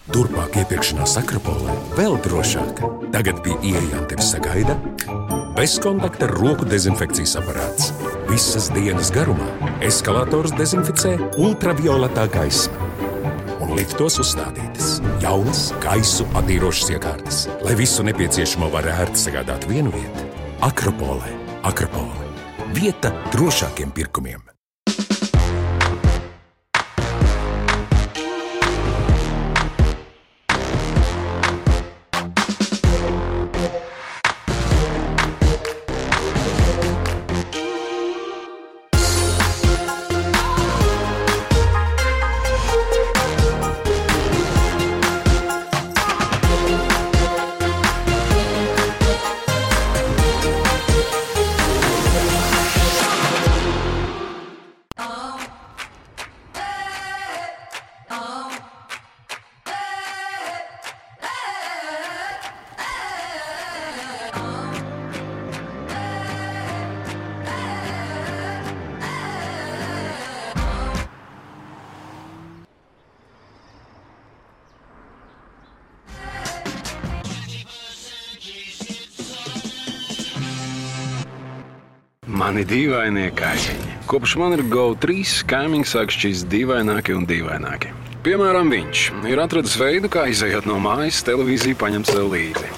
Turpmāk iepirkšanās Akropolē vēl drošāk. Tagad pie ieejām tevi sagaida bezkontakta roku dezinfekcijas aparāts. Visas dienas garumā eskalators dezinficē ultravioletā gaisma. Un liftos uzstādītas jaunas gaisu attīrošas iekārtas, lai visu nepieciešamo var ērti sagādāt vienu vietu. Akropolē. Akropole. Vieta drošākiem pirkumiem. Mani dīvainie kaimiņi. Kopš man ir GO3, kaimiņi sāk šķist dīvaināki un dīvaināki. Piemēram, viņš ir atradis veidu, kā izejot no mājas, televīziju paņemt sev līdzi.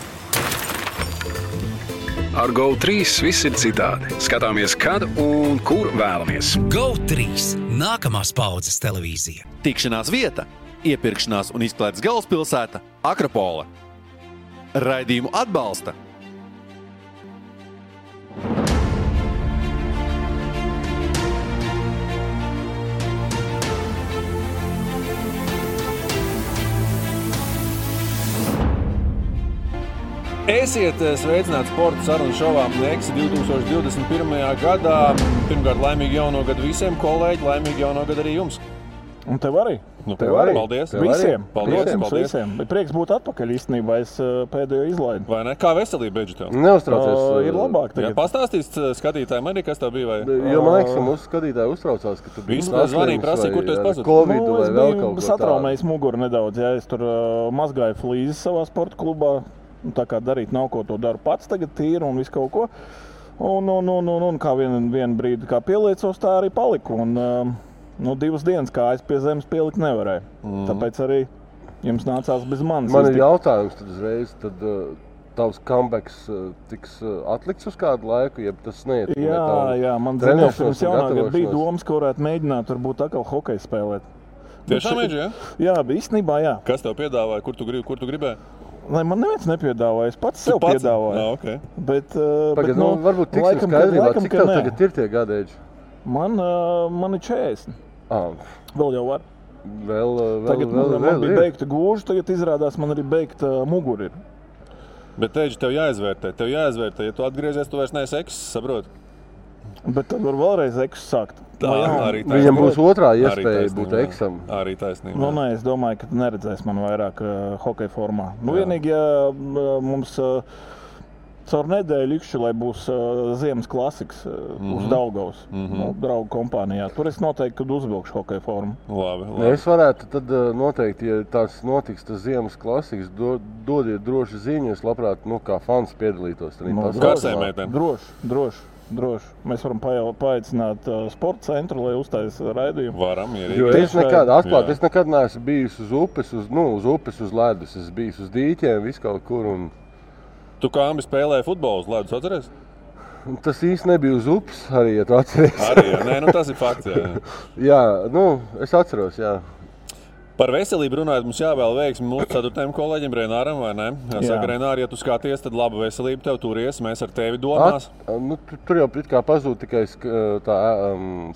Ar GO3 viss ir citādi. Skatāmies, kad un kur vēlamies. GO3 – nākamās paudzes televīzija. Tikšanās vieta, iepirkšanās un izklaides galvaspilsēta – Akropole. Raidījumu atbalsta Esiet sveicināti sporta sarunu šovā Neksi 2021. gadā. Pirmkārt, laimīgi jauno gadu visiem, kolēģi, laimīgi jauno gadu arī jums. Un tev arī. Tev arī. Paldies. Visiem. Paldies. Visiem. Bet prieks būt atpakaļ īstenībā, es pēdējo izlaidu. Vai ne? Kā veselība beidži tev? Neuztraucies. Ir labāk tagad. Jā, pastāstīs skatītājiem arī, kas tev bija? Vai? Jo man liekas, ka mūsu skatītāji uztraucās, ka tu biji zvanīja, prasīja, kur tu esi pazudis. Covid vai vēl kaut ko tādu. Es satraumējis muguru nedaudz, ja es tur mazgāju flīzes savā sporta klubā. Tā kā darīt nav ko, to daru pats tagad tīri un visu kaut ko. Un kā vienu brīdi kā pieliecos, tā arī paliku. Un 2 dienas kājas pie zemes pielikt nevarēja. Tāpēc arī jums nācās bez manis. Man ir jautājums tad uzreiz, tad tavs comebacks tiks atlikts uz kādu laiku, ja tas neiet? Jā, man zinās, pirms jaunā gada bija domas, ka varētu mēģināt varbūt atkal hokeju spēlēt. Tiešām mēģi, jā? Jā, īstenībā jā. Kas tev piedāvāja, kur tu gribēji? Lai man neviens nepiedāvāja, es pats sev piedāvāju. Okay. Bet varbūt tiksim skaidrībā, cik tev tagad ir tie gadēļi? Man ir 40. Vēl jau var. Tagad man bija beigta gūža, tagad izrādās man arī beigta mugura ir. Bet teģi, tev jāizvērtē, ja tu atgriezies, tu vairs neesi ekss, saproti? Bet tad var vēlreiz eksu sākt. Viņam būs otrā iespēja būt eksam. Arī taisnība. Es domāju, ka neredzēs man vairāk hokeja formā. Vienīgi, ja mums caur nedēļu ikšķi, lai būs ziemas klasiks uz Daugavas, draugu kompānijā. Tur es noteikti, kad uzvilkšu hokeja formu. Labi. Es varētu tad noteikti, ja tās notiks tas ziemas klasiks, dodiet droši ziņu, es labprāt, kā fans piedalītos. Droši. Mēs varam paaicināt sporta centru, lai uztaisa raidījumu. Varam, jo es nekad neesmu bijis uz upes, uz ledus. Es biju uz dīķiem, visu kaut kur. Tu kā ambi spēlēji futbolu uz ledus, atceries? Tas īsti nebija uz upes arī, ja tu atceries. Arī, jā. Tas ir fakts, jā. Jā, es atceros, jā. Par veselību runājot, mums jāvēl veiksmi mūsu 4. kolēģim Renāram, vai ne? Saka, Renāri, ja tu skaties, tad laba veselība tev turies, mēs ar tevi domās. Tur jau kā pazūd tikai tā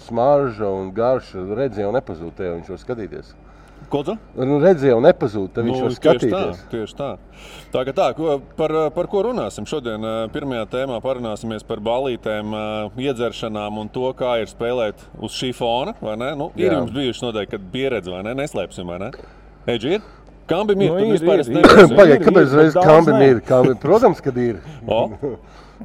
smarža un garša, redzi jau nepazūd tev, viņš var skatīties. Ko tu? Redzi jau nepazūd, tad viņš var skatīties. Tieši tā. Par ko runāsim šodien? Pirmajā tēmā parunāsimies par balītēm, iedzeršanām un to, kā ir spēlēt uz šī fona, vai ne? Ir jums bijuši noteikti, kad pieredze, vai ne? Neslēpsim, vai ne? Eģi ir? Kambim ir, Nu, tu vispār es ir. nezinu. Pagaid, kāpēc reiz daudz Kambim nē. ir? Protams, kad ir. O,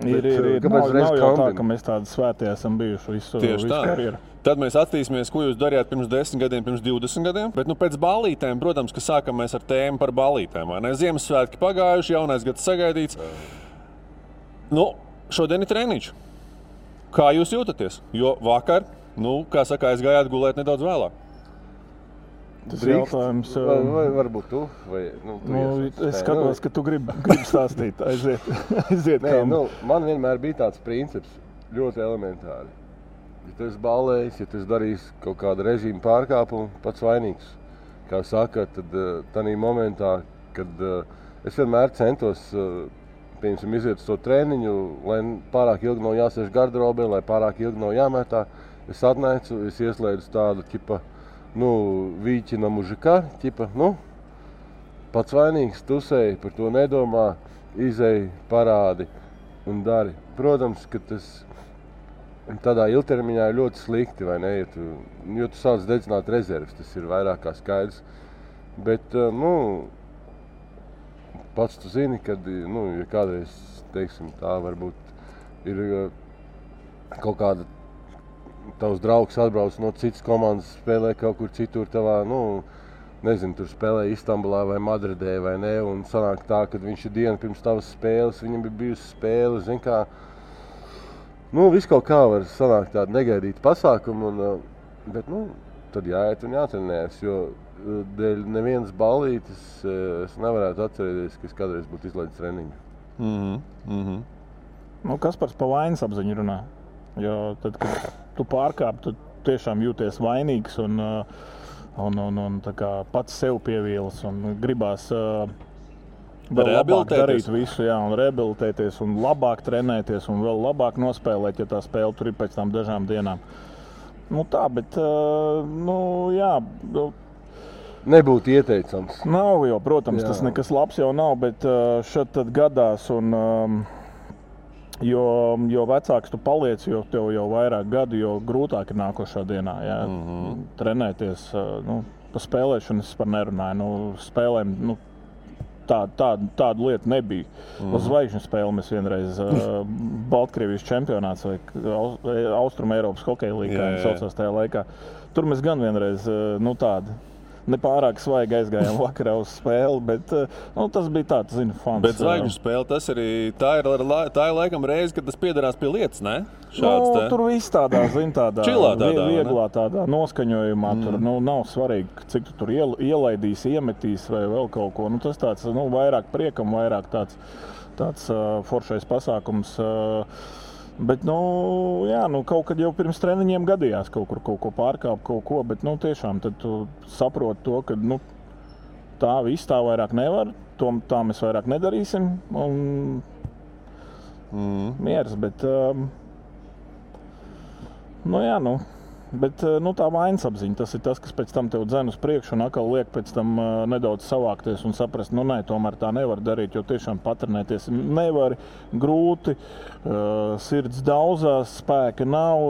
Ir. kāpēc Nav reiz jau tā, Kambim? ka mēs tādi svētie esam bijuši visu tieši tā. karjeru. Tad mēs attīstīsimies, ko jūs darījāt pirms 10 gadiem, pirms 20 gadiem. Bet pēc ballītēm, protams, ka sākam mēs ar tēmu par ballītēm. Vai ne? Ziemassvētki pagājuši, jaunais gads sagaidīts. Šodien ir treniņš. Kā jūs jūtaties? Jo vakar, kā saka, aizgājāt gulēt nedaudz vēlāk. Tas Drīkst? jautājums. Vai varbūt tu? Vai, Es skatos, ka tu gribi stāstīt. Aiziet Nē, kā. man vienmēr bija tāds princips, ļoti elementāri. Ja tu esi ballējis, ja tu esi darījis kaut kādu režīmu pārkāpumu, pats vainīgs. Kā saka, tad tādā momentā, kad es vienmēr centos iziet uz to treniņu, lai pārāk ilgi nav jāsēž garderobē, lai pārāk ilgi nav jāmetā. Es atnācu, es ieslēdzu tādu ķipa, vīķina mužika, ķipa, pats vainīgs, tusēji, par to nedomā, izēji, parādi un dari. Protams, ka tas tādā ilgtermiņā ir ļoti slikti, vai ne, jo tu sāc dedzināt rezerves, tas ir vairāk kā skaidrs. Bet, pats tu zini, kad, ja kādreiz, teiksim, tā varbūt ir kaut kāda tavs draugs atbrauc no citas komandas, spēlē kaut kur citur tavā, nezinu, tur spēlē Istambulā vai Madridē vai ne, un sanāk tā, kad viņš ir dienu pirms tavas spēles, viņam ir bijusi spēle, zin kā, viss kaut kā var sanākt tādu negaidītu pasākumu, bet, tad jāiet un jātrenējas, jo dēļ nevienas ballītes es nevarētu atcerēties, ka es kādreiz būtu izlaidis treniņu. Kaspars pa vainas apziņu runā. Jo tad, kad tu pārkāp, tu tiešām jūties vainīgs un tā kā pats sev pievīlas un gribās vēl labāk darīt visu, un rehabilitēties un labāk trenēties un vēl labāk nospēlēt, ja tā spēle tur ir pēc tam dažām dienām. Bet, Nebūtu ieteicams. Nav jau, protams, tas nekas labs jau nav, bet šad tad gadās un jo vecāks tu paliec, jo tev jau vairāk gadu, jo grūtāk ir nākošā dienā, trenēties. Pa spēlēšanu es par nerunāju, spēlēm, tādu lietu nebija. Uz zvaigžņu spēli mēs vienreiz Baltkrievijas čempionāts vai Austrum Eiropas hokeja līgā saucās tajā laikā. Tur mēs gan vienreiz tādu nepārāk svaigi aizgājām vakarā uz spēli, bet tas bija tāds, fans. Bet zvaigžņu spēle, tā ir laikam reize, kad tas piederās pie lietas, ne? Tur viss tādā, Čilā tādā, vieglā tādā noskaņojumā. Tur nav svarīgi, cik tu tur ielaidīs, iemetīs vai vēl kaut ko. Tas tāds, vairāk priekam, vairāk tāds foršais pasākums. Bet, kaut kad jau pirms treniņiem gadījās kaut ko pārkāpt, kaut ko, bet, tiešām tad tu saproti to, ka, tā viss tā vairāk nevar, tā mēs vairāk nedarīsim, un mieras, bet, bet, tā vainas apziņa, tas ir tas, kas pēc tam tev dzen uz priekšu un atkal liek pēc tam nedaudz savākties un saprast, nē, tomēr tā nevar darīt, jo tiešām patrenēties nevar, grūti, sirds daudzās, spēka nav,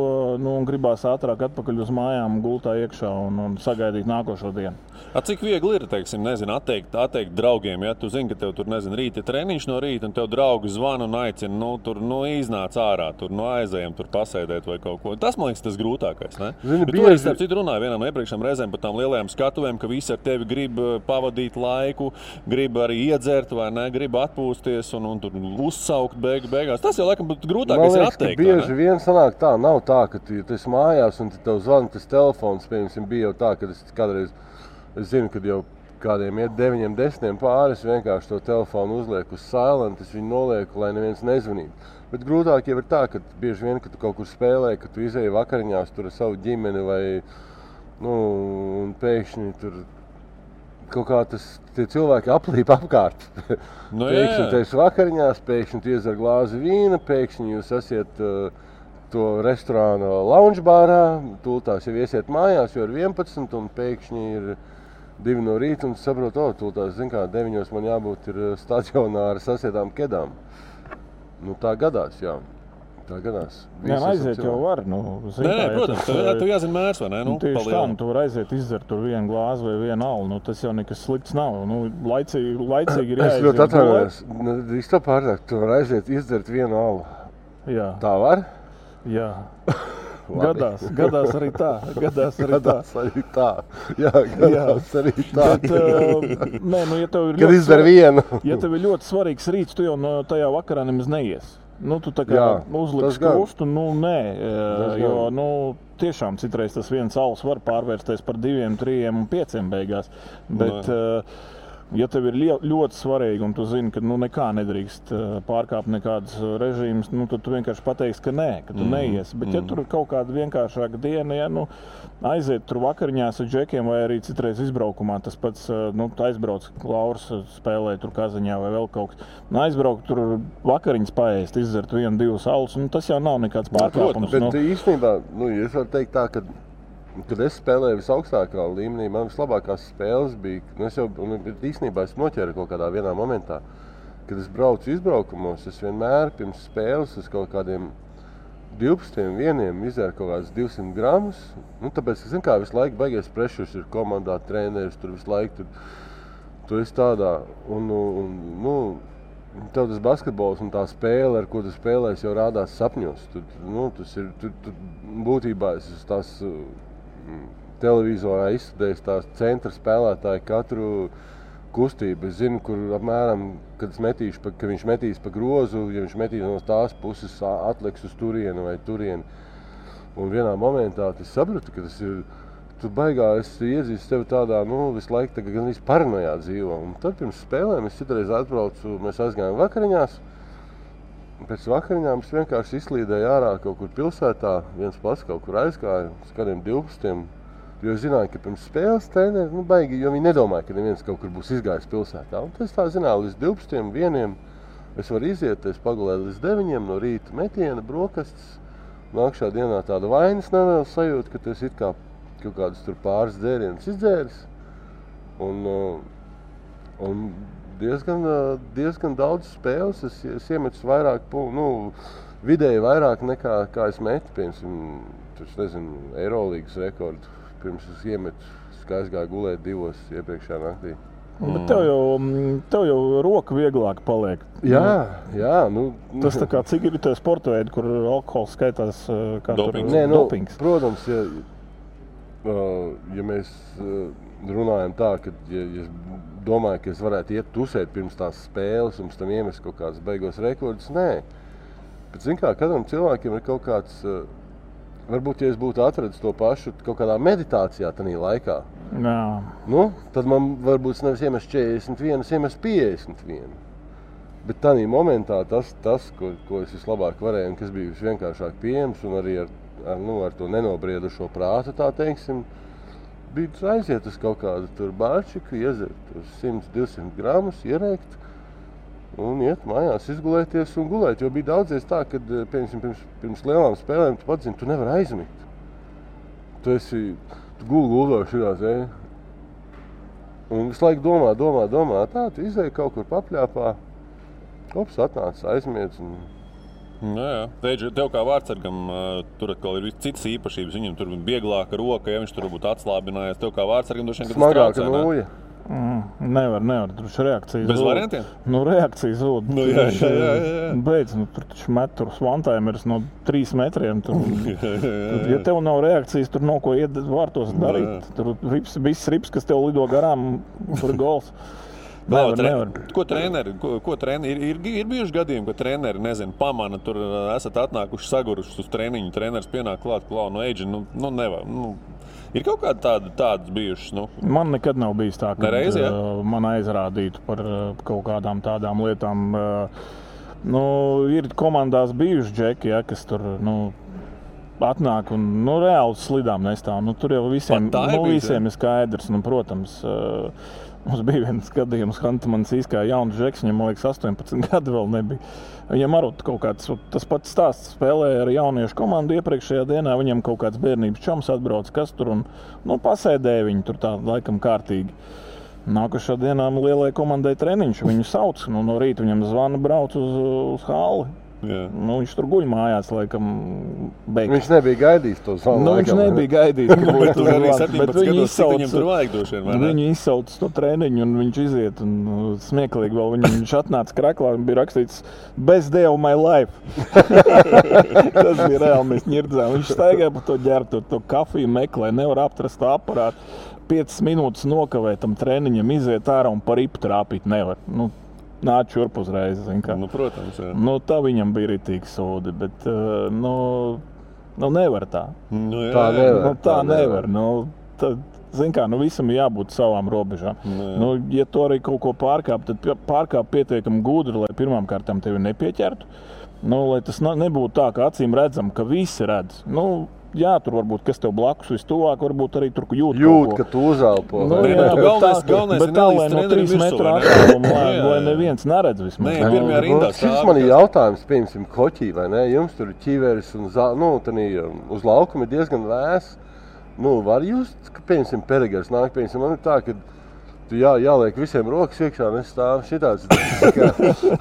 un gribās ātrāk atpakaļ uz mājām, gultā iekšā un sagaidīt nākošo dienu. Cik viegli ir, atteikt draugiem, ja tu zini, ka tev tur, rīta treniņš no rīta, un tev draugi zvana un aicina, tur, iznāc ārā, tur, aizējam, tur pasēdēt vai kaut ko. Tas, man liekas, tas grūtākais, ne? Bet tu arī starp citu runāji vienam iepriekšējām reizēm par tām lielajām skatuvēm, ka visi ar tevi grib pavadīt laiku, grib arī iedzert vai ne, grib atpūsties un tur uzsaukt beigās. Tas jau laikam grūtākais ir atteikt. Bieži vien sanāk tā, nav tā, ka tu esi mājās un tev zvana tas telefons, piemēram, bija jau tā, ka es kādreiz, es zinu, kad jau kādiem iet 9, 10 pāri, es vienkārši to telefonu uzlieku uz silent, es viņu nolieku, lai neviens nezvanītu. Bet grūtāk jau ir tā, ka bieži vien, kad tu kaut kur spēlē, ka tu izēji vakariņās tur ar savu ģimeni vai, un pēkšņi tur kaut kā tie cilvēki aplīp apkārt. Pēkšņi tu esi vakariņās, pēkšņi tu iedzer glāzi vīna, pēkšņi jūs esiet to restorāna lounge bārā, tūltās jau iesiet mājās, jo ir 11 un pēkšņi ir 2 no rīta un saprot, tūltās, 9 man jābūt ir stadionā ar sasietām kedām. Tā gadās, jā. Tā gadās. Jā, aiziet jau var. Nē, protams, tev jāzina mērs, vai ne? Tieši tā, tu var aiziet izdzert tur vienu glāzi vai vienu alu. Tas jau nekas slikts nav. Laicīgi ir jāiziet. Es ļoti atvainojos. Drīz to pārāk, tu var aiziet izdzert vienu alu. Jā. Tā var? Jā. Gadās arī tā. Gadās arī tā. Jā, gadās arī tā. Bet, ja tev ir kad izdara vienu. Ja tev ir ļoti svarīgs rīts, tu jau tajā vakarā nemaz neies. Tu tā kā uzliks krustu, jo tiešām citreiz tas viens alus var pārvērsties par 2, 3 un 5 beigās. Bet, ja tev ir ļoti svarīgi un tu zini, ka nekā nedrīkst pārkāpt nekādas režīmas, tad tu vienkārši pateiksi, ka nē, ka tu neies. Bet ja tur ir kaut kāda vienkāršāka diena, aiziet tur vakariņās ar džekiem vai arī citreiz izbraukumā, tas pats, aizbrauc Lauris spēlē tur Kazaņā vai vēl kaut kas. Aizbraukt tur vakariņas paēst, izdzert 1, 2 alus, tas jau nav nekāds pārkāpums. Bet īstenībā, es varu teikt tā, kad es spēlēju visaugstākā līmenī, man vislabākās spēles bija, īstenībā es noķēru kaut kādā vienā momentā, kad es braucu izbraukumos, es vienmēr pirms spēles uz kaut kādiem 12 vieniem izēru kaut kādas 200 gramus, tāpēc, ka, visu laiku baigies prešurs ir komandā, treneris, tur visu laiku, tu esi tādā, tev tas basketbols un tā spēle, ar ko tu spēlēsi, jau rādās sapņos, būtībā es tās televizorā izstudējis tās centra spēlētāji katru kustību. Es zinu, kur apmēram, kad viņš metīs pa grozu, ja viņš metīs no tās puses, atliks uz turieni vai turieni. Un vienā momentā es sapratu, ka tas ir, tu baigā esi iezīst tevi tādā, visu laiku gan visu paranojā dzīvo. Un tad pirms spēlēm es citreiz atbraucu, mēs aizgājām vakariņās. Pēc vakariņām es vienkārši izslīdēju ārā kaut kur pilsētā, viens pats kaut kur aizgāja, uz kādiem 12, jo es zināju, ka pirms spēles treneri, baigi, jo viņi nedomāja, ka neviens kaut kur būs izgājis pilsētā. Un es tā zināju, līdz 12, 1 es varu iziet, es pagulēju līdz 9 no rīta metiena, brokastis, nākšā dienā tāda vainas nevēl sajūta, ka tu esi it kā kaut kādus tur pāris dzērienus izdzēris. Un diezgan daudz spēles, es iemetu vairāk, vidēji vairāk nekā kā es metu, piemēram, Eirolīgas rekordu. Pirms es iemetu, kā es gāju gulēt 2 iepriekšējā naktī. Bet tev jau roka vieglāk paliek. Jā. Tas tā kā cik ir tie sporta veidi, kur alkohols skaitās kā dopings. Dopings. Protams, ja mēs runājam tā, ka ja es domāju, ka es varētu iet tusēt pirms tās spēles un pēc tam iemest kaut kādas beigos rekordus, nē. Bet, katram cilvēkiem ir kaut kāds, varbūt, ja es būtu atradis to pašu kaut kādā meditācijā tanī laikā, tad man varbūt nevis iemest 41, iemest 51. Bet tanī momentā tas ko es vislabāk varēju un kas bija visvienkāršāk pieejams un arī ar to nenobriedušo prātu, tā teiksim, bija aiziet uz kaut kādu tur bārčiku, iezert uz 100-200 gramus, ierēkt un iet mājās, izgulēties un gulēt. Jo bija daudzies tā, kad pirms lielām spēlēm tu pats zini, tu nevar aizmigt. Tu guldoši šitās, un visu laiku domā, tā, tu izēji kaut kur papļāpā, ops, atnāc, aizmiedz un... Jā. Tev kā vārdsargam tur atkal ir citas īpašības. Viņam tur vieglāka roka, ja viņš tur būtu atslābinājies. Tev kā vārdsargam droši vien, kad smagāka nūja. Nevar. Tur ir reakcija. Bez variantiem? Reakcija zūd. Jā. Beidz, tur taču met tur svantaimeris no 3 metriem. Ja tev nav reakcijas, tur nav ko iet vārtos darīt. Tur viss rips, kas tev lido garām, tur ir gols. Nevar. Ko treneri ir bijuši gadījumi, ka treneri, pamana, tur esat atnākuši sagurušus uz treniņu, treneris pienāk klāt, Eidži, nevar. Ir kaut kādi tādas bijušas? Man nekad nav bijis tā, ka nereiz, man aizrādītu par kaut kādām tādām lietām. Ir komandās bijuši džeki, kas tur, atnāk un reāli slidām nestāv. Tur jau visiem ir skaidrs, protams. Mums bija viens gadījums, Hantamans izkāja jauns žeks, viņam, man liekas, 18 gadi vēl nebija. Viņam arī kaut kāds, tas pats stāsts, spēlēja ar jauniešu komandu iepriekšējā dienā, viņam kaut kāds bērnības čoms atbrauc, kas tur un, pasēdēja viņu tur tā laikam kārtīgi. Nākošā dienā lielajai komandai treniņš, viņu sauc, no rīta viņam zvana brauc uz halli. Nu, viņš tur guļ mājās, laikam, beigās. Viņš nebija gaidījis to zvanu. Viņš nebija gaidījis, ka būtu Tur arī zvans, 17 gados, cik viņam tur vajag došien, vai ne? Viņu izsauc no treniņu un viņš iziet un smieklīgi vēl viņš atnāca kraklā un bija rakstīts Best day of my life. Tas bija reāli, mēs ņirdzām. Viņš staigāja pa to ģertu, to kafiju meklē, nevar aptrast to aparātu. 5 minūtes nokavēt tam treniņam, iziet ārā un par ripu trāpīt nevar. Nu, nāc šurp uzreiz, zin kā. Nu, protams, jā. Nu, tā viņam bija ritīgi sūdi, bet, nu, nevar tā. Nu, jā, Tā nevar. Nu, tā nevar. Nu, tad, zin kā, nu, visam jābūt savām robežām. Nu, ja tu arī kaut ko pārkāp, tad pārkāp pietiekami gudri, lai pirmām kārtām tevi nepieķertu. Nu, lai tas nebūtu tā, ka acīm redzam, ka visi redz. Nu, jā, tur varbūt, kas tev blakus vistuvāk, varbūt arī tur jūt ka tu uzalpo. Nu, Nē, jā, galvenais bet ir tā, lai nelīdz no trenerim 3 metru virsū, vai ne? attāluma, Jā. lai neviens neredz vismaz. Nē, pirmajā rindā Šis man ir jautājums, piemēram, hoķī, vai ne? Jums tur ir ķiveris un uz laukuma ir diezgan vēs. Nu, var jūs, ka, piemēram, Perigars nāk, piemēram, man ir tā, ka tu jāliek visiem rokas iekšā, un es stāvu šitāds, kā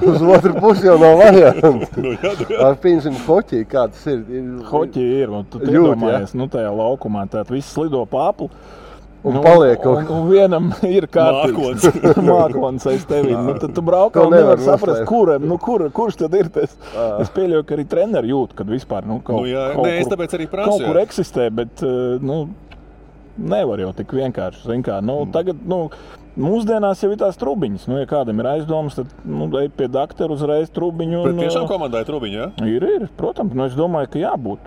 uz otru pusi jau nav variantu. Ar piemēram, hoķī, kā tas ir? Hoķi ir, un tu Jūt, iedomājies, nu, tajā laukumā, tātad viss slido pa apli. Un paliek kaut kā. Un vienam ir kārtīgs mākons aiz tevi. Nu, tad tu braukā To un nevar nevar saprast, kurš tad ir tas. Es pieļauju, ka arī treneri jūt, kad vispār kaut es tāpēc arī prasu. Kaut kur eksistē, bet nevar jau tik vienkārši. Zin kā, tagad, mūsdienās jau ir tās trubiņas. Ja kādam ir aizdomas, tad ej pie dakteru uzreiz trubiņu. Bet tiešām komandai trubiņu, jā? Ir, protams. Es domāju, ka jābūt.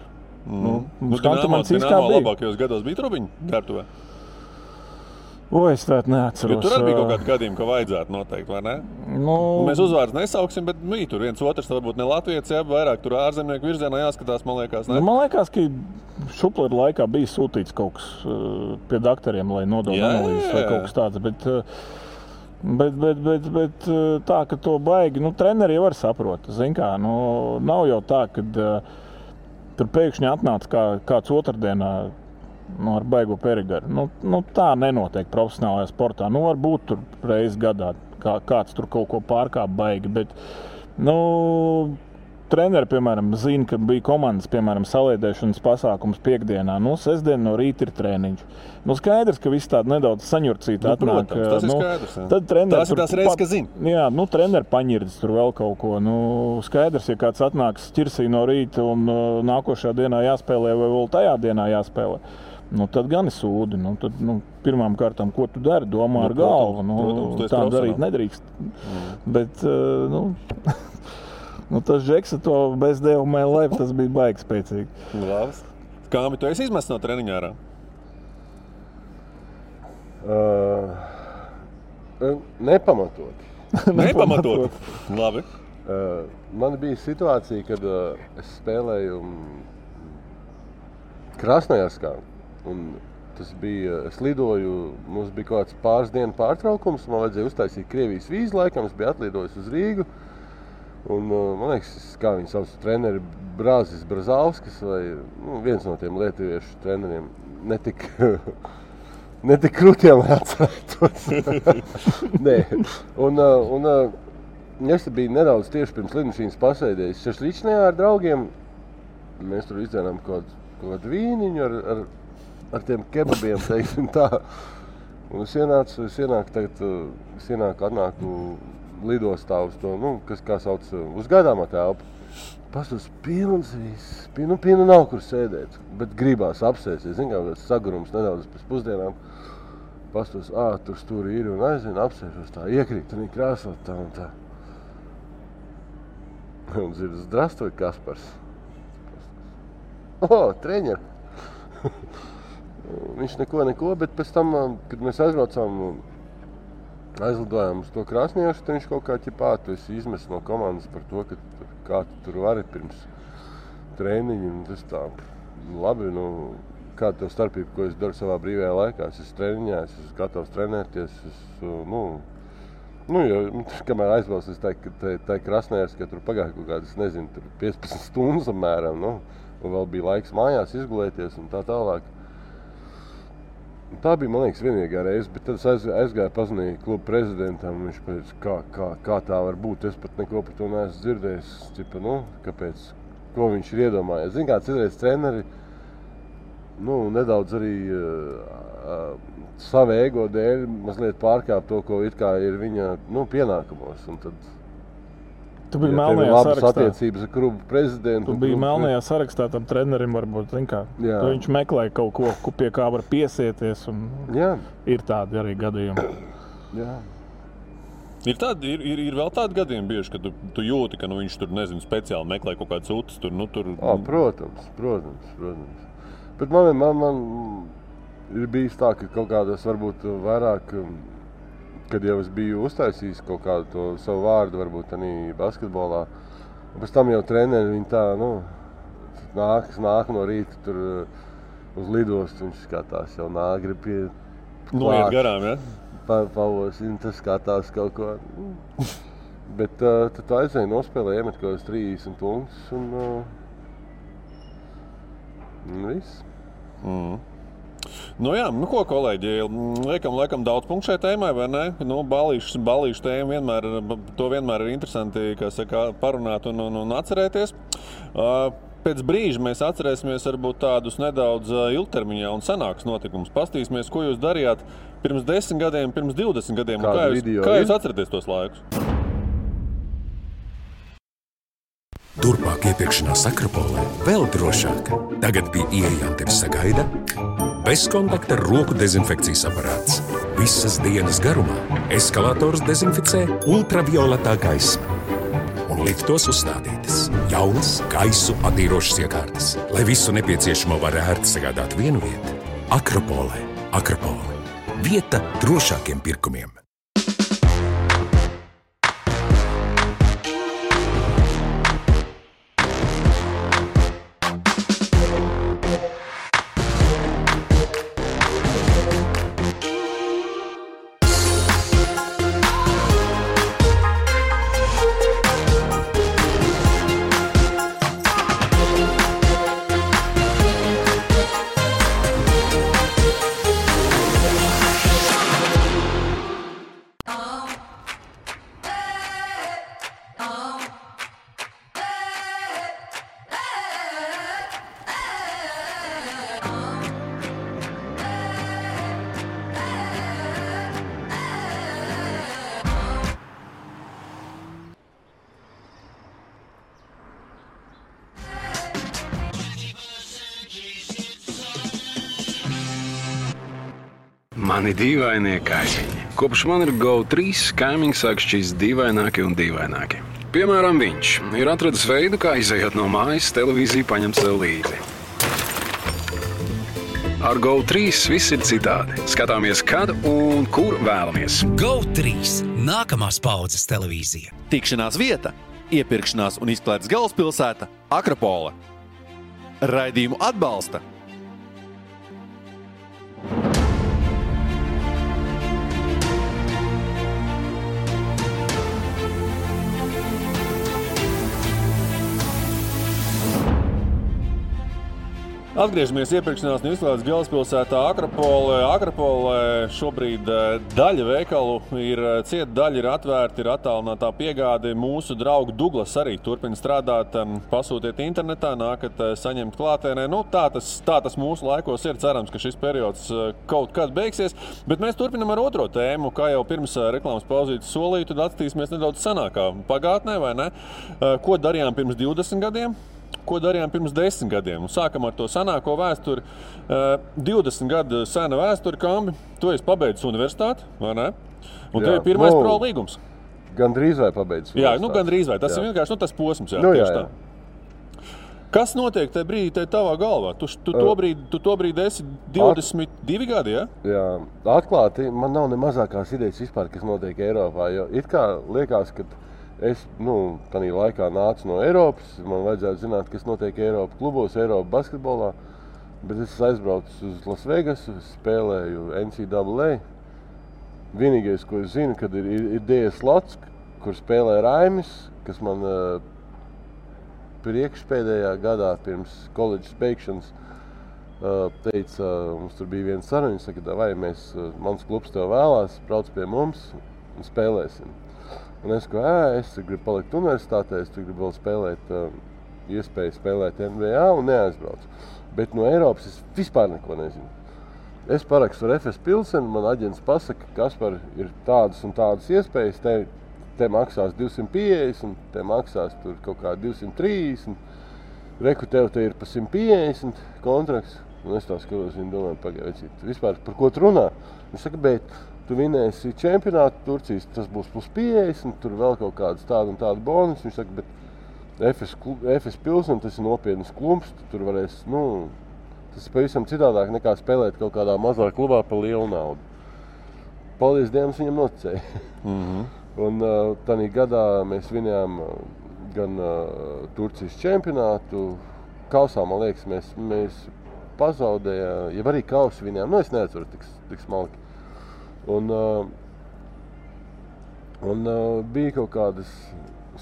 Dinamo labākajos gados bija trubiņu ģērbtuvē? Es tādu neatceros. Jo tur arī bija kaut kādi gadījumi, ka vajadzētu noteikti, vai ne? Mēs uzvārds nesauksim, bet bija tur viens otrs, varbūt ne Latvijas, jā, vairāk tur ārzemnieku virzienā jāskatās, man liekas, ne? Man liekas, ka Šuplera laikā bija sūtīts kaut kas pie dakteriem, lai nodod analīzes vai kaut kas tāds, bet tā, ka to baigi, treneri jau var saprot, zin kā, nav jau tā, kad tur pēkšņi atnāca kāds otrdienā, ar baigo Perigaru. Tā nenotiek profesionālajā sportā. Varbūt tur reiz gadā kāds tur kaut ko pārkāp baigi, bet, treneri, piemēram, zina, ka bija komandas, piemēram, saliedēšanas pasākums piekdienā. Sestdien no rīta ir treniņš. Skaidrs, ka viss tāda nedaudz saņurcīta atnāk. Protams, tas ir skaidrs. Tad treneri tās ir tās reizes, ka zina. Jā, treneri paņirdas tur vēl kaut ko. Skaidrs, ja kāds atnāks ķirsī no rīta un nākošā dienā jāspēlē vai vēl tajā dienā jāspēlē. Tad gan ir sūdi. Tad, pirmām kārtām, ko tu dari, domā ar galvu. Protams, tā darīt nedrīkst. Bet, tas Žeksa to Best day of my life, tas bija baigi spēcīgi. Labs. Kāmi, tu esi izmests no treniņā ārā? Nepamatot. Nepamatot? Labi. Man bija situācija, kad es spēlēju Krasnojarskā. Un tas bija, es lidoju, mums bija kaut kāds pāris dienu pārtraukums, man vajadzēja uztaisīt Krievijas vīzu laikam, es biju atlidojis uz Rīgu. Un, man liekas, kā viņi sauc treneri, Brāzis Brazauskis vai viens no tiem lietuviešu treneriem, netik krūtiem, lai atcerētos. Nē. Un es biju nedaudz tieši pirms lidmašīnas pasēdējis Šašličnajā ar draugiem. Mēs tur izdzērām kaut kādu vīniņu ar tiem kebabiem, teiksim tā. Un es atnāku lidostā uz to, kas kā sauc, uz gaidāmā telpu. Pastos pilns viss, pilnu nav kur sēdēt, bet gribās apsēsties, kā sagurums nedaudz pēc pusdienām. Pastos, tur stūri ir un aizvien apsēšos tā, iekrīt un krāsot tā un tā. Un dzird, zdrastoj, Kaspars. Treņeri. Viņš neko, bet pēc tam, kad mēs aizlidojām uz to Krasnojarsku, tad viņš kaut kā tu esi izmests no komandas par to, ka kā tu tur vari pirms treniņu. Un tas tā, labi, kāda tev starpība, ko es daru savā brīvajā laikā. Es esmu treniņā, es esmu gatavs trenēties, jo, kamēr aizvalsts, es teiktu, ka tā Krasnojarska, tur pagāja kaut kādas, nezinu, tur 15 stundas apmēram, un vēl bija laiks mājās izgulēties un tā tālāk. Tā bija, man liekas, vienīgā reize, bet tad es aizgāju pazinīju klubu prezidentam, viņš pēc kā tā var būt, es pat neko par to neesmu dzirdējis, tipa, kāpēc, ko viņš ir iedomājies. Zin kā, citreiz treneri, nedaudz arī savu ego dēļ mazliet pārkāp to, ko it kā ir viņa, pienākumos, un tad... Tu biji melnajā sarakstā. Attiecības ar klubu prezidentu. Tu biji melnajā sarakstā tam trenerim, varbūt, zin kā. Viņš meklēja kaut ko, pie kā var piesieties, un ir tādi arī gadījumi. Jā. Ir vēl tādi gadījumi bieži, ka tu jūti, ka viņš tur, nezinu, speciāli meklē kaut kāds utas tur, Protams. Bet man ir bijis tā, ka kaut kādas varbūt vairāk... Kad jau es biju uztaisījis kaut kādu to savu vārdu, varbūt arī basketbolā. Un pēc tam jau treneri, viņi tā, nāk no rīta tur uz lidostu, viņš skatās jau nāk, grib pie noiet garām, ja? Pavosina, tas skatās kaut ko. Bet tad tu aizēji nospēlē, iemet kaut kādas 30 punktus un viss. Ko, kolēģi, liekam daudz punktu šai tēmai, vai ne? Balīšu tēma vienmēr ir interesanti, kā saka, parunāt un atcerēties. Pēc brīža mēs atcerēsimies varbūt tādus nedaudz ilgtermiņā un senākus notikumus. Pastīsimies, ko jūs darījāt pirms 10 gadiem, pirms 20 gadiem. Kā jūs atceraties tos laikus? Turpmāk iepirkšanās Akropolē vēl drošāk. Tagad pie ieejām tevi sagaida bezkontakta roku dezinfekcijas aparāts. Visas dienas garumā eskalators dezinficē ultravioletā gaisma. Un liftos uzstādītas jaunas gaisu attīrošas iekārtas, lai visu nepieciešamo var ērti sagādāt vienu vietu. Akropolē. Vieta drošākiem pirkumiem. Mani dīvainie kaimiņi. Kopš man ir GO3, kaimiņi sāk šķist dīvaināki un dīvaināki. Piemēram, viņš ir atradis veidu, kā izejot no mājas, televīziju paņemt sev līdzi. Ar GO3 viss ir citādi. Skatāmies, kad un kur vēlamies. GO3 – nākamās paudzes televīzija. Tikšanās vieta, iepirkšanās un izklaides galvaspilsēta – Akropole. Raidījumu atbalsta Atgriežamies iepirkšanās un izklaides galvaspilsētā Akropolē. Akropolē šobrīd daļa veikalu ir cieta, daļa ir atvērta, ir attālinātā piegāde. Mūsu draugu Douglas arī turpina strādāt. Pasūtiet internetā, nākat saņemt klātienē. Tā tas mūsu laikos ir. Cerams, ka šis periods kaut kad beigsies. Bet mēs turpinam ar otro tēmu. Kā jau pirms reklāmas pauzītes solīju, tad atskatīsimies nedaudz senākā pagātnē, vai ne? Ko darījām pirms 20 gadiem? Ko darījām pirms 10 gadiem? Un sākam ar to senāko vēsturi. 20 gadu sena vēsturi, Kambi. Tu esi pabeidzis universitāti, vai ne? Un tev ir pirmais pro līgums. Gandrīz vai pabeidzis universitāti. Jā, gandrīz vai. Tas ir vienkārši tas posms. Jā. Kas notiek tajā brīdī tavā galvā? Tu to brīdi esi 22 gadi, ja? Jā, atklāti, man nav ne mazākās idejas vispār, kas notiek Eiropā. Jo it kā liekas, ka es, tādā laikā nācu no Eiropas, man vajadzētu zināt, kas notiek Eiropas klubos, Eiropas basketbolā, bet es aizbraucu uz Las Vegasu, spēlēju NCAA. Vienīgais, ko es zinu, kad ir DS Lots, kur spēlē Raimis, kas man priekšpēdējā gadā pirms koledžas beigšanas teica, mums tur bija viena saruna, viņš saka, vai mans klubs tev vēlās, brauc pie mums un spēlēsim. Un es gribu palikt universitātē, es gribu vēl spēlēt, iespēju spēlēt NBA un neaizbraucu. Bet no Eiropas es vispār neko nezinu. Es parakstu ar FS Pilsenu, man aģents pasaka, Kaspar, ir tādas un tādas iespējas, te maksās 250, te maksās tur kaut kā 230, reku tev te ir pa 150 kontrakts. Un es tā skatos, viņi domāju, pagaidīt, vispār par ko tu runā? Viņš saka, bet tu vinēsi čempionātu Turcijas, tas būs plus 50, tur vēl kaut kādas tāda un tāda bonus. Viņš saka, bet FS Pilsena, tas ir nopietnas klubs, tur varēs, tas ir pavisam citādāk nekā spēlēt kaut kādā mazā klubā par lielu naudu. Paldies Dievam, viņam noticēja. Un tādā gadā mēs vinējām gan Turcijas čempionātu, kausā, man liekas, mēs pazaudējām, ja arī kausu vinējām, es neatceru tik smalki. Un bija kaut kādas,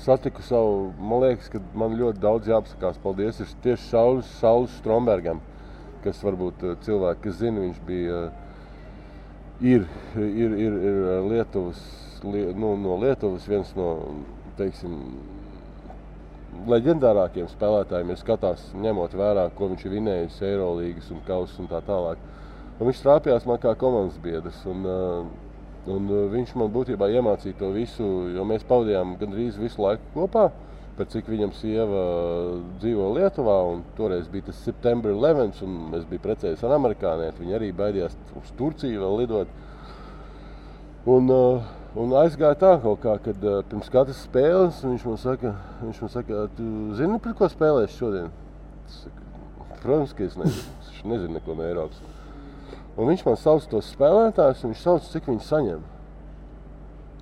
satiku savu, man liekas, ka man ļoti daudz jāpasakās, paldies, ir tieši Saulis Strombergam, kas varbūt cilvēki, kas zina, viņš bija, ir Lietuvas, no Lietuvas viens no, teiksim, leģendārākiem spēlētājiem, ja skatās, ņemot vērā, ko viņš ir vinējis Eirolīgas un kausas un tā tālāk. Un viņš strāpjās man kā komandas biedrs, un viņš man būtībā iemācīja to visu, jo mēs pavadījām gandrīz visu laiku kopā, pēc cik viņam sieva dzīvo Lietuvā, un toreiz bija tas September 11, un es biju precējies ar amerikānieti, viņi arī baidījās uz Turciju vēl lidot. Un aizgāja tā kaut kā, kad pirms katras spēles viņš man saka, tu zini, par ko spēlēsi šodien? Es saku, protams, ka es nezinu neko no Eiropas. Un viņš man sauc tos spēlētājus, un viņš sauc, cik viņi saņem.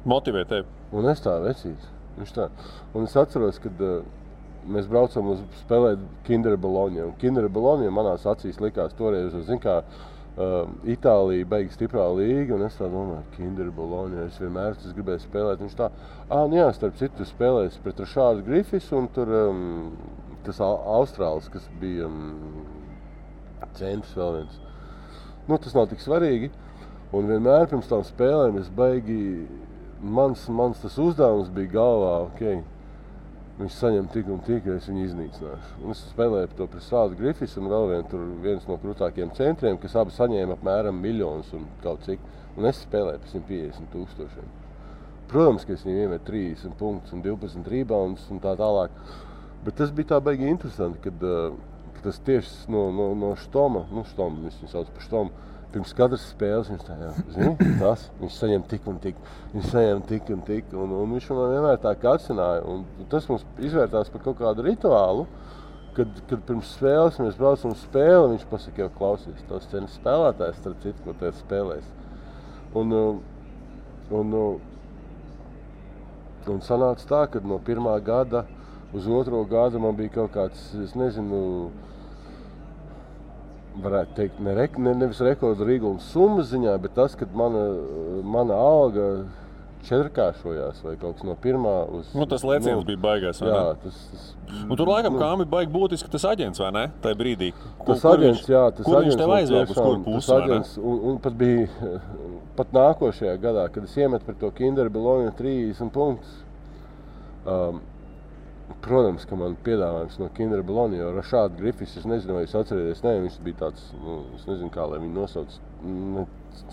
Motivē tevi. Un es tā vecīts. Viņš tā. Un es atceros, kad mēs braucam uz spēlēt Kinder Bologna. Un Kinder Bologna manās acīs likās toreiz, zin kā, Itālija beig stiprā līga, un es tā domāju, Kinder Bologna, es vienmēr gribēju spēlēt. Viņš tā, jā, starp citu spēlēs pret Rašārdu Grifis, un tur tas Austrālis, kas bija centrs vēl viens. Tas nav tik svarīgi, un vienmēr pirms tām spēlēm es beigi, mans tas uzdevums bija galvā, viņš saņem tik un tik, ja es viņu iznīcināšu. Un es spēlēju to pret Rašārdu Grifis un vēl viens no krūtākiem centriem, kas abi saņēma apmēram miljonus un kaut cik, un es spēlēju par 150,000. Protams, ka es viņu iemetu 30 punktus un 12 rebounds un tā tālāk, bet tas bija tā baigi interesanti, kad tas tieši no Štoma, viņš viņu sauc par Štomu, pirms katras spēles viņš tā, viņš saņem tik un tik, un viņš man vienmēr tā kacināja, un tas mums izvērtās par kaut kādu rituālu, kad pirms spēles mēs braucam uz spēli, viņš pasaka, jau klausies, tos cenas spēlētājs, starp citu, ko te spēlēs. Un sanāca tā, ka no pirmā gada uz otro gadu man bija kaut kāds, es nezinu, varētu teikt, nevis rekordu Rīgums summas ziņā, bet tas, kad mana alga četrkāršojās vai kaut kas no pirmā uz... Tas lēciens bija baigās, vai jā, ne? Un tur laikam kā bija baigi būtiski tas aģents, vai ne? Tajā brīdī. Kur viņš tev aizvēl, uz kuru pusi, vai ne? Un pat bija, pat nākošajā gadā, kad es iemetu par to Kinder Bologna 30 punktus, protams, ka man piedāvājums no Kinder Bologna, jo Rašārdu Grifis, es nezinu, vai jūs atcerieties, viņš bija tāds, es nezinu, kā lai viņu nosauc,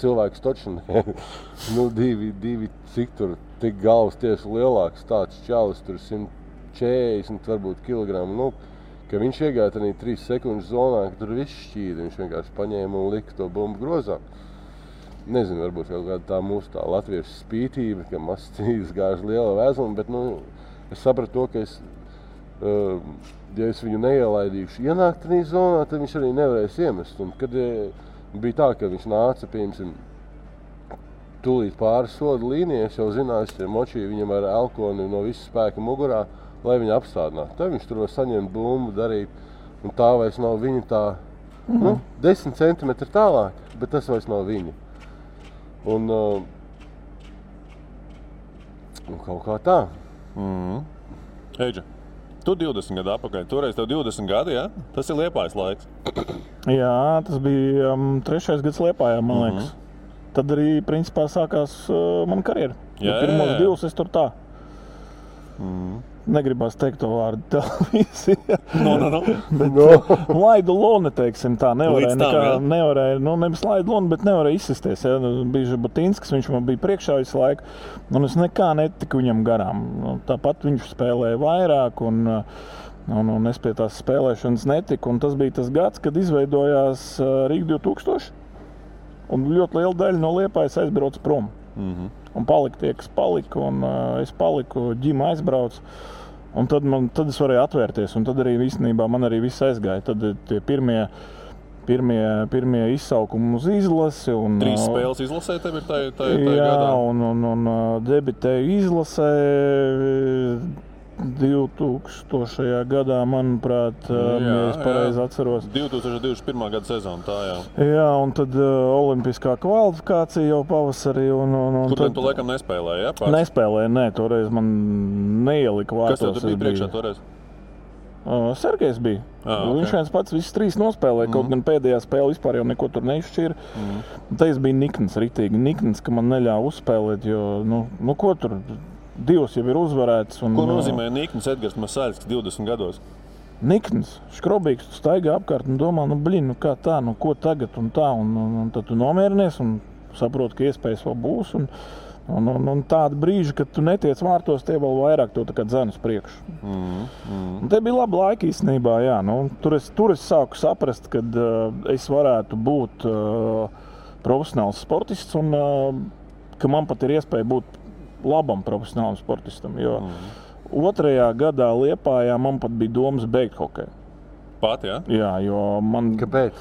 cilvēks toču, divi, cik tur, tik galvas tieši lielāks, tāds čalis, tur 140, varbūt kilogramu, ka viņš iegāja tādā 3 sekundžu zonā, ka tur viss šķīda, viņš vienkārši paņēma un lika to bumbu grozā. Nezinu, varbūt kaut kāda tā mūsu tā latviešu spītība, ka mazs cīgas gāž liela vēzuma, bet, es sapratu to, ka ja es viņu neielaidīšu ienākt tādā zonā, tad viņš arī nevarēs iemest. Un kad bija tā, ka viņš nāca, piemēram, tūlīt pāri soda līnijai, es jau zināju, es močīju viņam ar elkoni no visu spēka mugurā, lai viņu apstādinātu. Tad viņš tur var saņemt bumbu, darīt, un tā vairs nav viņa tā, 10 centimetri tālāk, bet tas vairs nav viņa. Un kaut kā tā. Eidža, Tu 20 gadu atpakaļ, toreiz tev 20 gadi, jā? Tas ir Liepājas laiks. Jā, tas bija 3. gads Liepājā, man liekas. Tad arī, principā, sākās mana karjera. Pirmos 2 es tur tā. Negribās teikt to vārdu televīzija. Bet laidu loni, teiksim tā, nevarēja, nevis laidu loni, bet nevarēja izsisties. Ja? Bija Žabotinskis, viņš man bija priekšā visu laiku, un es nekā netiku viņam garām. Tāpat viņš spēlēja vairāk, un es pie tās spēlēšanas netiku. Un tas bija tas gads, kad izveidojās Rīga 2000, un ļoti liela daļa no Liepājas aizbrauca prom. Un palika tie, kas palika, un es paliku, ģima aizbrauc. Un tad es varēju atvērties, un tad arī īstenībā man arī viss aizgāja. Tad tie pirmie izsaukumi uz izlasi. 3 spēles izlasē tev ir tajā jā, gadā? un debitēju izlasē 2000. gadā, manuprāt, ja es pareizi atceros. 2021. gada sezona, tā jā. Jā, un tad olimpiskā kvalifikācija jau pavasarī. Kur tad tu laikam nespēlēji, jā? Nespēlēju, nē, toreiz man neielika vārtos. Kas tev tur bija priekšā toreiz? Sergejs bija. Okay. Viņš viens pats visus 3 nospēlēja, kaut gan pēdējā spēle vispār jau neko tur neizšķīra. Te es biju nikns, ritīgi nikns, ka man neļāva uzspēlēt, jo, ko tur... 2 jau ir uzvarēts. Ko nozīmē Nikns Edgars Masaļskis 20 gados? Nikns, škrobīgs, tu staigā apkārt un domā, kā tā, ko tagad un tā. Un tad tu nomierinies un saproti, ka iespējas vēl būs. Un tāda brīža, kad tu netiec vārtos, tie vēl vairāk to tā kā dzen uz priekšu. Un te bija laba laika īstenībā, jā. Tur es sāku saprast, kad es varētu būt profesionāls sportists un ka man pat ir iespēja būt labam profesionālam sportistam, jo 2. gadā Liepājā man pat bija domas beigt hokeju. Pat, jā? Jā, jo man... Kāpēc?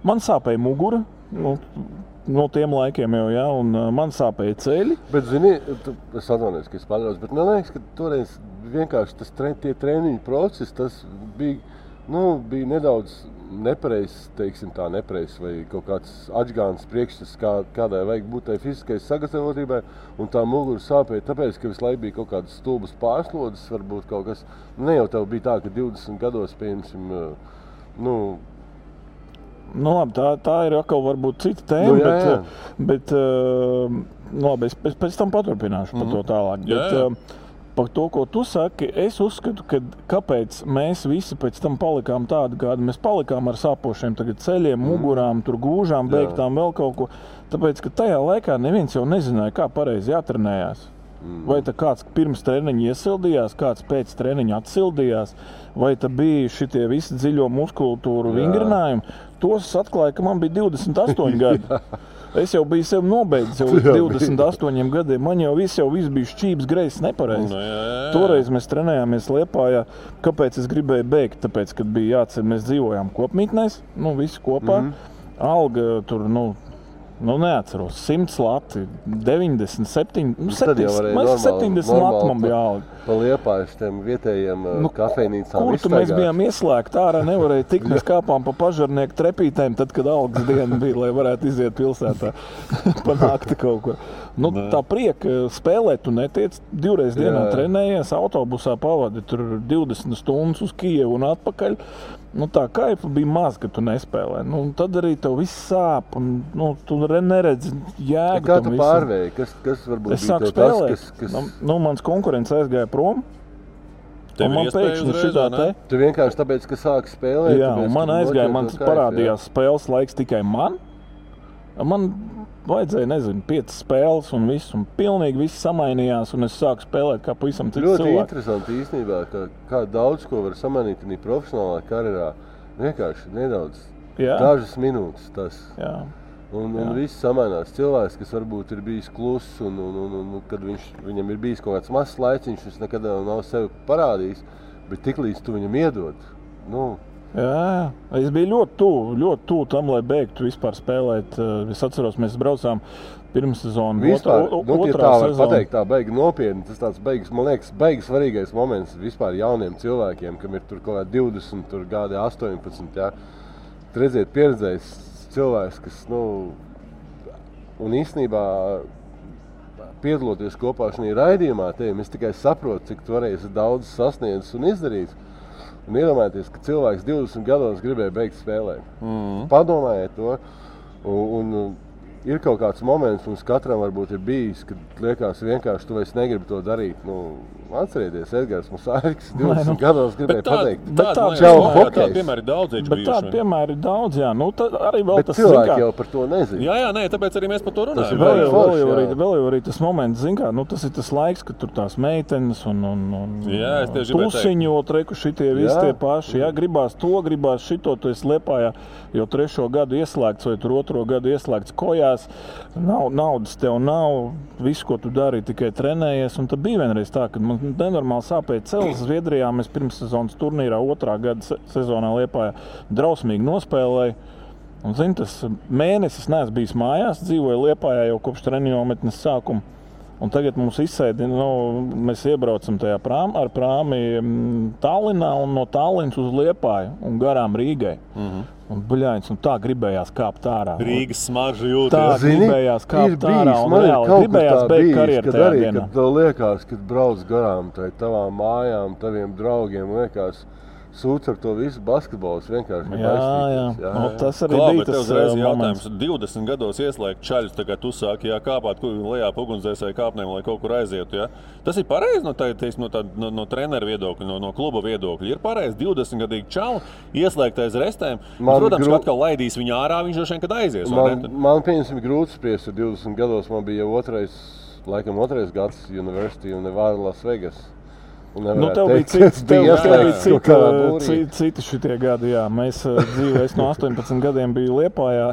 Man sāpēja mugura, no tiem laikiem jau, jā, un man sāpēja ceļi. Bet, zini, es atvainojos, ka es paļaus, bet man liekas, ka toreiz vienkārši tie treniņu procesi, tas bija nedaudz nepareizs, teiksim tā, vai kaut kāds atžgāns priekšstats, kādai vajag būt tai fiziskai sagatavotībai, un tā mugura sāpēja, tāpēc, ka visu laiku bija kaut kādas stulbas pārslodzes, varbūt kaut kas, ne jau tev bija tā, ka 20 gados, pieņemsim, labi, tā ir atkal varbūt cita tēma, bet labi, es pēc tam paturpināšu par to tālāk. Bet, par to, ko tu saki, es uzskatu, ka kāpēc mēs visi pēc tam palikām tādi, kādi mēs palikām ar sāpošiem tagad ceļiem, mugurām, tur gūžām, beigtām, vēl kaut ko. Tāpēc, ka tajā laikā neviens jau nezināja, kā pareizi jātrenējās. Vai tā kāds pirms treniņa iesildījās, kāds pēc treniņa atsildījās, vai tā bija šitie visi dziļo muskultūru vingrinājumi. Tos atklāja, ka man bija 28 gadi. Es jau biju sev nobeidzis jau 28 gadiem. Man jau viss bija šķības greizs nepareizi. Toreiz mēs trenējāmies Liepājā. Kāpēc es gribēju beigt? Tāpēc, kad bija jāceļ, mēs dzīvojām kopmītnēs, visi kopā. Alga tur, neatceros, 100 lati, 97, 70 lati man bija alga. Pa Liepājas tiem vietējiem kafejnīcām kur tu mēs bijām ieslēgti ārā, nevarēja tikt, mēs kāpām pa pažarnieku trepītēm, tad, kad algas diena bija, lai varētu iziet pilsētā panākti kaut kur. Tā prieka spēlēt tu netiec, 2 reizes dienā trenējies, autobusā pavadi tur 20 stundas uz Kijevu un atpakaļ. Tā kaifa bija maz, ka tu nespēlē. Tad arī tev viss sāp un tu neredzi jēgu. Kā tu pārvēji? Kas varbūt es sāku spēlēt. Mans konkurents aizgāja prom. Un man pēkšņi šitā te. Tu vienkārši tāpēc, ka sāki spēlēt? Jā, un man aizgāja, man parādījās spēles laiks tikai man. Man vajadzēja, 5 spēles un viss, un pilnīgi viss samainījās, un es sāku spēlēt kā pavisam cits cilvēks. Ļoti interesanti īstenībā, kā daudz ko var samainīt arī profesionālā karjerā. Vienkārši nedaudz, dažas minūtes tas. Jā. Un viss samainās. Cilvēks, kas varbūt ir bijis kluss, un kad viņam ir bijis kaut kāds mazs laiciņš, viņš nekad nav sevi parādījis, bet tiklīdz tu viņam iedod, Jā, es biju ļoti tuvu tam, lai beigtu vispār spēlēt. Es atceros, mēs braucām pirmssezonu, otrā sezonu. Pateikt, tā beigi nopietni, tas tāds beigas, man liekas, beigas svarīgais moments vispār jauniem cilvēkiem, kam ir tur kaut kā 20, tur gadi 18, jā. Redziet, pieredzējis cilvēks, kas, un īstenībā piedaloties kopā šajā raidījumā, es tikai saprotu, cik tu varēsi daudz sasniedzis un izdarīt. Un iedomājieties, ka cilvēks 20 gados gribēja beigt spēlēt. Padomājiet to. Un ir kaut kāds moments, mums katram varbūt ir bijis, kad liekas vienkārši tu vairs negribi to darīt. Atcerieties, Edgars Musārks 20 gados gribēja pateikt. Tāda piemēri daudz bijuši. Bet tāda piemēri daudz, jā. Arī vēl bet tas cilvēki jau par to nezina. Jā, tāpēc arī mēs par to runājam. Vēl jau arī tas moments, tas ir tas laiks, kad tur tās meitenes un tusiņot, reku šitie visi tie paši. Jā, gribās to, gribās šito, tu esi Liepājā jau 3. gadu ieslēgts vai tur 2. gadu ieslēgts kojās. Naudas tev nav, visu, ko tu dari, tikai trenējies. Un tad bija vienreiz tā, kad man nenormāli sāpēja celis Zviedrijā. Mēs pirmssezonas turnīrā 2. gada sezonā Liepājā drausmīgi nospēlēja. Un, tas mēnesis neesmu bijis mājās, dzīvoju Liepājā jau kopš treniņometnes sākuma. Un tagad mums izsēdi, mēs iebraucam tajā ar prāmi Tallinā un no Tallinas uz Liepāju un garām Rīgai. Un buļāņas, tā gribējās kāpt ārā. Rīgas smarža jūtas. Tā gribējās kāpt ārā un reāli gribējās beigt karjeru tajā dienā. Kad tev liekas, kad brauc garām tavām mājām, taviem draugiem, liekas, sūc ar to visu basketbols vienkārši. Jā. Tas arī bija tas jautājums. 20 gados ieslēgt čaļus, tā kā tu sāki kāpāt lejā pa ugunsdzēsēju kāpnēm, lai kaut kur aizietu. Ja? Tas ir pareizi no trenera viedokļa, no kluba viedokļa. Ir pareizi 20-gadīgi čalu ieslēgt aiz restēm. Protams, ka atkal laidīs viņu ārā, viņš droši vien, kad aizies. Man pieņemsim grūti spriest, jo 20 gados man bija jau otrais gads University un Nevada Las Vegas. Tev bija citi šitie gadi, jā. Es no 18 gadiem biju Liepājā,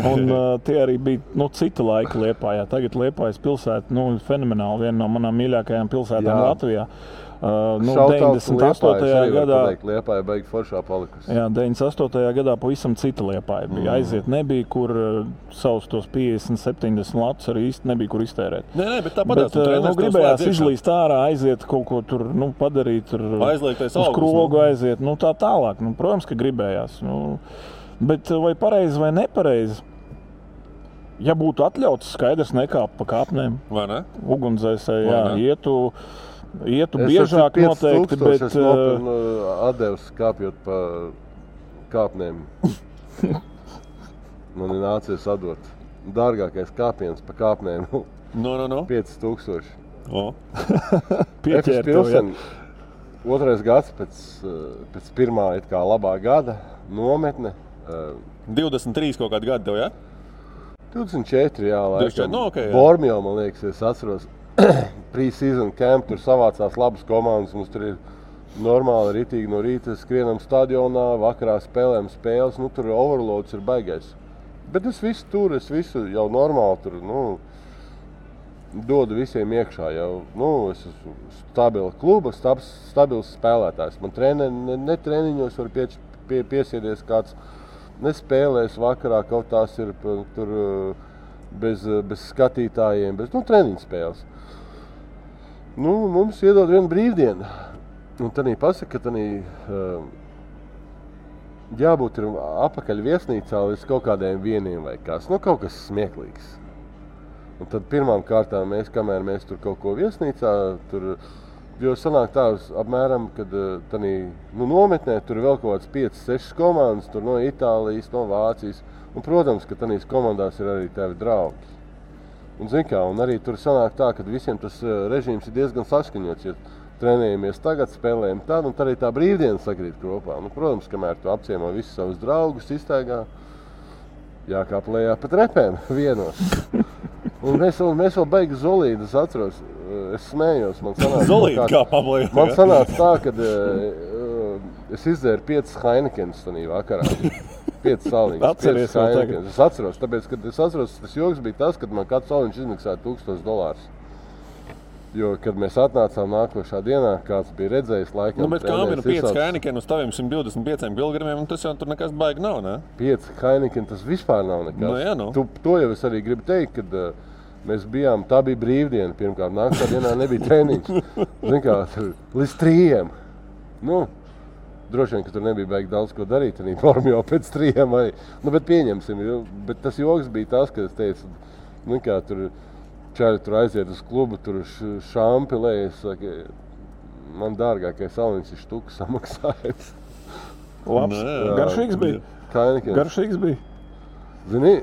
un tie arī bija cita laika Liepājā. Tagad Liepājas pilsēta fenomenāli, viena no manām mīļākajām pilsētām Latvijā. 98. gadā Liepāja beig foršā palikusi. Jā, 98. gadā pavisam cita Liepāja bija. Aiziet nebija, kur savus tos 50-70 latus arī īsti nebija, kur iztērēt. Bet tāpat gribējās izlīst ārā, aiziet kaut ko tur padarīt, uz krogu aiziet, tā tālāk. Protams, ka gribējās. Bet vai pareizi vai nepareizi? Ja būtu atļauts, skaidrs nekāp pa kāpnēm. Vai ne? Ugunsdzēsēji, ietu biežāk noteikti, bet... Es nopirnu atdevs kāpjot pa kāpnēm. Man ir nācies atdot. Dārgākais kāpiens pa kāpnēm. 5000. Pieķēr tev, jā. 2. gads pēc pirmā labā gada nometne. 23 kaut kādi gadi tev, jā? 24, jā, laikam. Okay, Bormio, man liekas, es atceros. Pre-season camp, tur savācās labas komandas, mums tur ir normāli ritīgi no rīta skrienam stadionā, vakarā spēlēm spēles, tur overloads ir baigais. Bet es visu jau normāli tur, dodu visiem iekšā jau, es esmu stabila kluba, stabils spēlētājs. Man ne treniņos var piesiedies kāds, nespēlēs vakarā, kaut tās ir tur bez skatītājiem, bez treniņu spēles. Mums iedod vienu brīvdienu. Un tad pasaka, ka jābūt ir apakaļ viesnīcā līdz kaut kādiem vieniem vai kas. Kaut kas smieklīgs. Un tad pirmām kārtām kamēr mēs tur kaut ko viesnīcā, jo sanāk tā apmēram, kad nometnē tur vēl kaut kāds 5-6 komandas, tur no Itālijas, no Vācijas. Un, protams, ka tanīs komandās ir arī tavi draugi. Un, un arī tur sanāk tā, ka visiem tas režīms ir diezgan saskaņots. Ja trenējamies tagad, spēlējam tad, un tad arī tā brīvdiena sakrīt kopā. Protams, kamēr tu apciemo visus savus draugus, iztaigā, jākāp lejā pa trepēm vienos. Un mēs vēl beigi Zolīdu, es atceros, es smējos. Zolīdu kāpām lejā? Man sanāca tā, kad es izdzēru 5 Heinekenes tanī vakarā. 5 saliņas. Atceries vēl tagad? Es atceros, tāpēc, kad es atceros, tas joks bija tas, kad man kāds saliņš izmaksāja $1000. Jo, kad mēs atnācām nākošā dienā, kāds bija redzējis laikam... Bet kā ir 5 Heineken uz taviem 125 kilogramiem, un tas jau tur nekas baigi nav, ne? 5 Heineken, tas vispār nav nekas. To jau es arī gribu teikt, kad mēs bijām, tā bija brīvdiena pirmkārt, nākošā dienā nebija treniņš. Līdz 3. Droši vien, ka tur nebija baigi daudz ko darīt, arī formu jau pēc 3 vai... bet pieņemsim, bet tas joks bija tas, ka es teicu, tur čaļi tur aiziet uz klubu, tur šampi lējas, man dārgākais Alniņš ir štuka samaksājums. Labs. Garšīgs bija. Kainikiem. Garšīgs bija. Zini?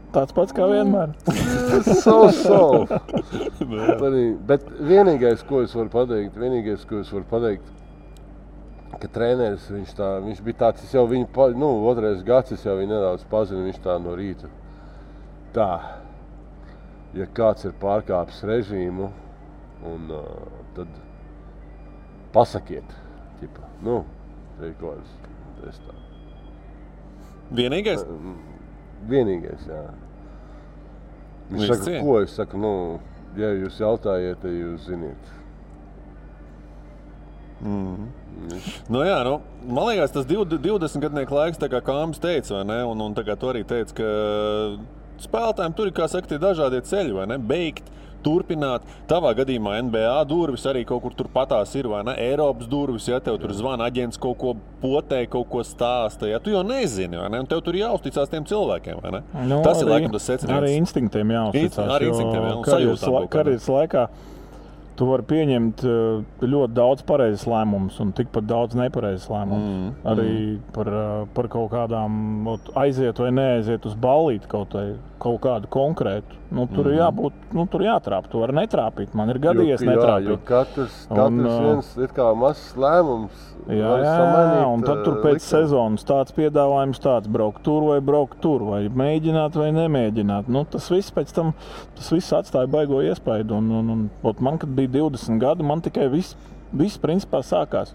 Tāds pats kā vienmēr. So. Bet vienīgais, ko es varu pateikt, ka treneris, viņš bija tāds, es jau viņu, otrais gads, es jau viņu nedaudz pazinu, viņš tā no rīta. Tā, ja kāds ir pārkāpis režīmu, un tad pasakiet, ķipa, reikojas, es tā. Vienīgais? Vienīgais, jā. Viņš saka, ko es saku, ja jūs jautājiet, tad jūs ziniet. Man liekas, tas 20-gadnieku laiks, tā kā Kāms teica, vai ne? Un tā kā tu arī teici, ka spēlētājiem tur ir, kā saka, tie dažādie ceļi, vai ne? Beigt, turpināt. Tavā gadījumā NBA durvis arī kaut kur tur patās ir, vai ne? Eiropas durvis, ja tev tur zvana aģents kaut ko potē, kaut ko stāsta, ja tu jau nezini, vai ne? Un tev tur jāuzticās tiem cilvēkiem, vai ne? Tas ir laikam tas secinājums. Arī instinktiem jāuzticās. Arī instinktiem, un sajūtām. Karjeras laikā tu vari pieņemt ļoti daudz pareizes lēmumus un tikpat daudz nepareizes lēmumus. Arī par kaut kādām aiziet vai neaiziet uz ballīti kaut kādu konkrētu. Tur ir jābūt, tur jātrāp. Tu vari netrāpīt. Man ir gadījies netrāpīt. Jo katrs viens ir kā mazs lēmums. Jā, un tad tur pēc sezonas tāds piedāvājums tāds braukt tur, vai mēģināt vai nemēģināt. Tas viss pēc tam, tas viss atstāja baigo iespaidu. Un man, kad bija 20 gadi, man tikai viss principā sākās.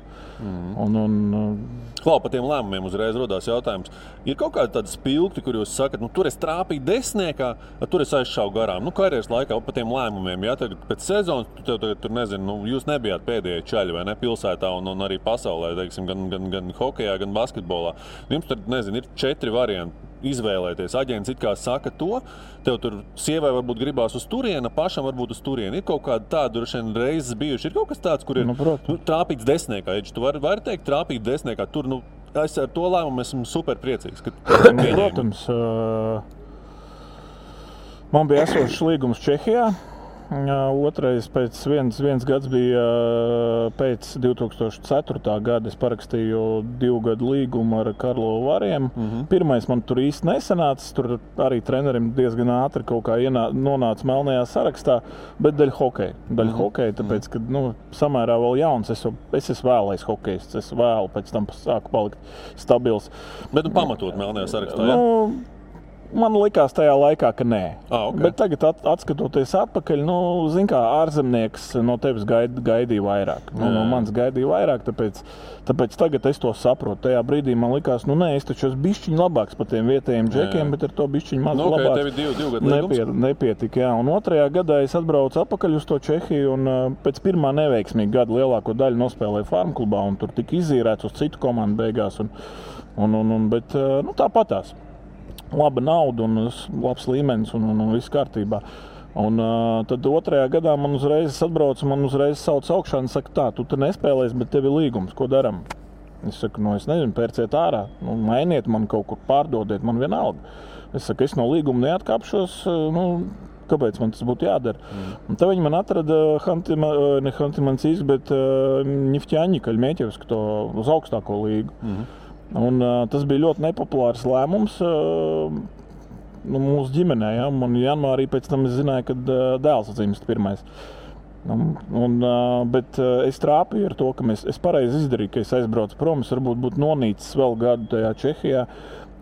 Klau, par tiem lēmumiem uzreiz rodās jautājums. Ir kaut kādi tādi spilgti, kur jūs sakat, tur es trāpīju desmitniekā, tur es aizšāvu garām. Karjeras laikā par tiem lēmumiem, ja tagad pēc sezonas, tur nezinu, jūs nebijāt pēdējie čaļi, vai ne, pilsētā un arī pasaulē, teiksim, gan hokejā, gan basketbolā. Jums tur, nezinu, ir 4 varianti izvēlēties. Aģents it kā saka to, tev tur sievai varbūt gribās uz turieni, pašam varbūt uz turieni. Ir kaut kāda tāda reizes bijuši. Ir kaut kas tāds, kur ir trāpīts desmitniekā. Tu vari teikt, trāpīt desmitniekā. Tur, es ar to lēmumu esmu super priecīgs. Protams, man bija esošs līgums Čehijā. Otrais pēc viens gads bija pēc 2004. gada. Es parakstīju 2 gadu līgumu ar Karlovu Variem. Pirmais man tur īsti nesanāca. Tur arī trenerim diezgan ātri kaut kā nonāca melnajā sarakstā, bet daļa hokeja. Tāpēc, kad samērā vēl jauns, es esmu vēlais hokejists. Es vēlu pēc tam sāku palikt stabils. Bet pamatot melnajā sarakstā, ja? Man likās tajā laikā, ka nē. Okay. Bet tagad, atskatoties atpakaļ, zin kā, ārzemnieks no tevis gaidīja vairāk. No manis gaidīja vairāk, tāpēc tagad es to saprotu. Tajā brīdī man likās, es taču esmu bišķiņ labāks par tiem vietējiem džekiem, bet ar to bišķiņ maz labāks. Tev ir 2 gadu līgums? Nepietika, jā. Un 2. gadā es atbraucu atpakaļ uz to Čehiju un pēc pirmā neveiksmīga gada lielāko daļu nospēlēju Farmklubā un tur tika izīrēts uz citu komandu beigās. Bet tāpatās. Laba nauda un labs līmenis un viss kārtībā. Un tad 2. gadā man uzreiz atbrauca, man uzreiz sauc augšā un saka, tā, tu te nespēlēsi, bet tev ir līgums, ko daram? Es saku, es nezinu, pērciet ārā, mainiet man kaut kur, pārdodiet man vienalga. Es saku, es no līguma neatkāpšos, kāpēc man tas būtu jādara? Un tad viņi man atrada ne Hantimansīs, bet Ņiftjaņi, Kaļmēķevsku to uz augstāko līgu. Un tas bija ļoti nepopulārs lēmums mūsu ģimenē. Ja? Un janvārī pēc tam es zināju, ka dēls dzimst pirmais. Bet es trāpīju ar to, ka es pareizi izdarīju, ka es aizbraucu prom. Es varbūt būtu nonīcis vēl gadu tajā Čehijā.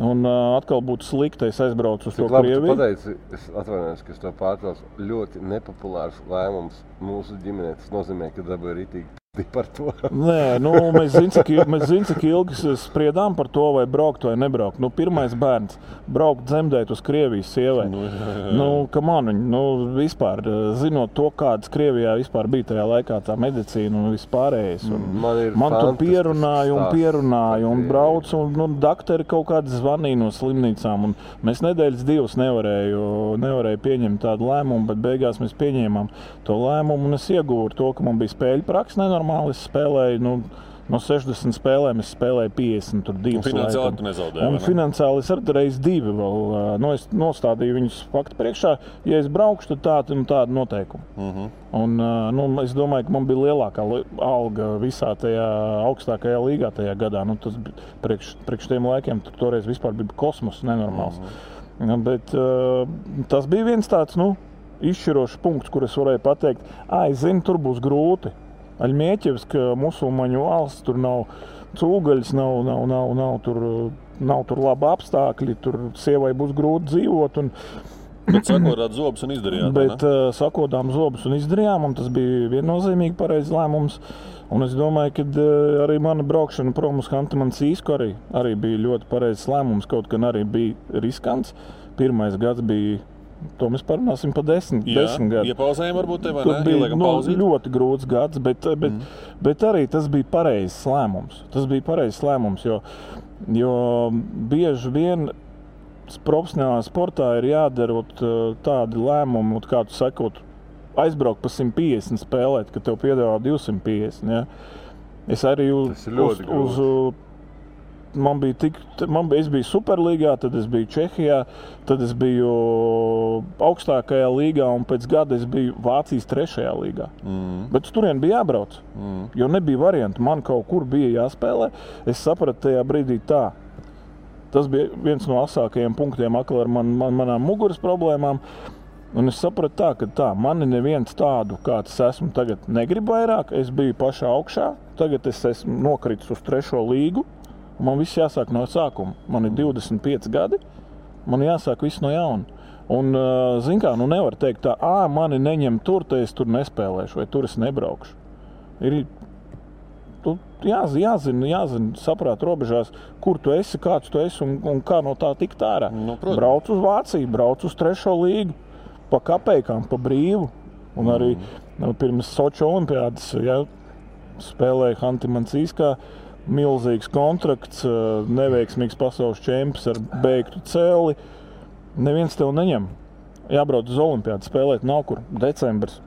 Un atkal būtu slikti, es aizbraucu uz to Krieviju. Tu pateici, es atvainojos, ka es to pārtraucu. Ļoti nepopulārs lēmums mūsu ģimenē. Tas nozīmē, ka dabūja ritīgi par to. Nē, mēs zinām, cik ilgi spriedām par to, vai braukt vai nebraukt. Pirmais bērns braukt dzemdēt uz Krievijas sievai. Vispār, zinot to, kādas Krievijā vispār bija tajā laikā tā medicīna un vispārējais. Man tur pierunāja un brauc, un daktori kaut kādi zvanīja no slimnīcām. Un mēs nedēļas 2 nevarēju pieņemt tādu lēmumu, bet beigās mēs pieņēmām to lēmumu, un es ieguvu to, ka man bija spēļu praksa nenormāli. Es spēlēju no 60 spēlēm es spēlēju 52. Un finansiāli tu nezaudēji, un vai ne? finansiāli es arī reiz 2 vēl. Es nostādīju viņus faktu priekšā. Ja es braukšu, tad tāda noteikuma. Un es domāju, ka man bija lielākā alga visā tajā augstākajā līgā tajā gadā. Tas priekš tiem laikiem toreiz vispār bija kosmos nenormāls. Bet tas bija viens tāds, izšķirošs punkts, kur es varēju pateikt, es zinu, tur būs grūti. Aļmieķevska musulmaņu valsts, tur nav cūgaļas, nav tur labi apstākļi, tur sievai būs grūti dzīvot. Bet sakodāt zobus un izdarījāt, Bet sakodām zobus un izdarījām, un tas bija viennozīmīgi pareizs lēmums. Un es domāju, ka arī mana braukšana prom uz Hanti-Mansīsku arī bija ļoti pareizs lēmums, kaut gan arī bija riskants. Pirmais gads bija, to mēs parunāsim pa 10 gadu. Iepauzējām varbūt tev, vai ne? ne? Ieliekam pauzīt. Ļoti grūts gads, bet arī tas bija pareizs lēmums. Tas bija pareizs lēmums, jo bieži vien profesionālā sportā ir jādara tādi lēmumi, kā tu sakot, aizbraukt pa 150 spēlēt, ka tev piedāvā 250. Ja? Es arī es biju Superlīgā, tad es biju Čehijā, tad es biju augstākajā līgā un pēc gada es biju Vācijas 3. līgā. Bet turien bija jābrauc, jo nebija variantu. Man kaut kur bija jāspēlē. Es sapratu tajā brīdī tā. Tas bija viens no asākajiem punktiem ar manām muguras problēmām. Un es sapratu ka mani neviens tādu, kāds esmu tagad, negrib vairāk. Es biju pašā augšā, tagad es esmu nokritis uz 3. līgu. Man viss jāsāk no sākuma. Man ir 25 gadi, man jāsāk viss no jauna. Un, zin kā, nevar teikt tā, mani neņem tur, tad es tur nespēlēšu, vai tur es nebraukšu. Ir jāzina, saprāt robežās, kur tu esi, kāds tu esi un kā no tā tikt ārā. Brauc uz Vāciju, brauc uz 3. līgu, pa kapeikām, pa brīvu. Un arī pirms Soču olimpiādas spēlēja Hanti-Mansīskā. Milzīgs kontrakts, neveiksmīgs pasaules čempions ar beigtu cēli. Neviens tev neņem. Jābrauc uz olimpiādu spēlēt nav kur. Decembris.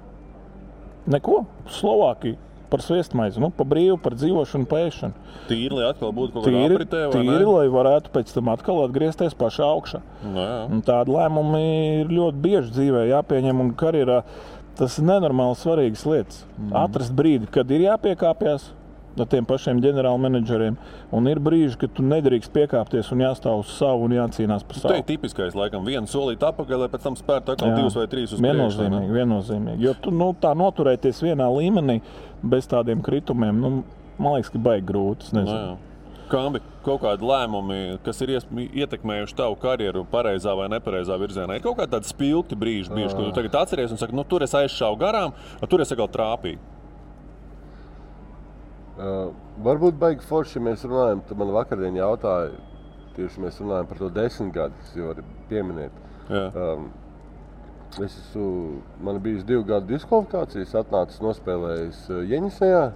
Neko. Slovākija par sviestmaizi. Pa brīvu, par dzīvošanu, pēšanu. Tīri, lai atkal būtu kaut kāda apritē, vai ne? Tīri, lai varētu pēc tam atkal atgriezties pašā augšā. Un tādi lēmumi ir ļoti bieži dzīvē jāpieņem un karjerā. Tas ir nenormāli svarīgas lietas. Atrast brīdi, kad ir jāpiekāpjas ar tiem pašiem ģenerālmenedžeriem. Un ir brīži, kad tu nedrīkst piekāpties un jāstāv uz savu un jācīnās par savu. Tā ir tipiskais, laikam, vienu solīt apakaļ, lai pēc tam spērt atkal 2 vai 3 uz priekšu. Viennozīmīgi. Jo tu tā noturēties vienā līmenī bez tādiem kritumiem, man liekas, ka baigi grūti. Kambi, kaut kādi lēmumi, kas ir ietekmējuši tavu karjeru pareizā vai nepareizā virzienā, ir kaut kādi tādi spilgti brīži, ko tu tagad atceries un saki, tur es aizšāvu garām, tur es atkal trāpīju. Varbūt baigi forši, ja mēs runājam, tad man vakardien jautāja, tieši mēs runājam par to 10 gadus, jo var pieminēt. Man bijis 2 gadu diskvalifikācijas, atnācis nospēlējis Jeņisejā.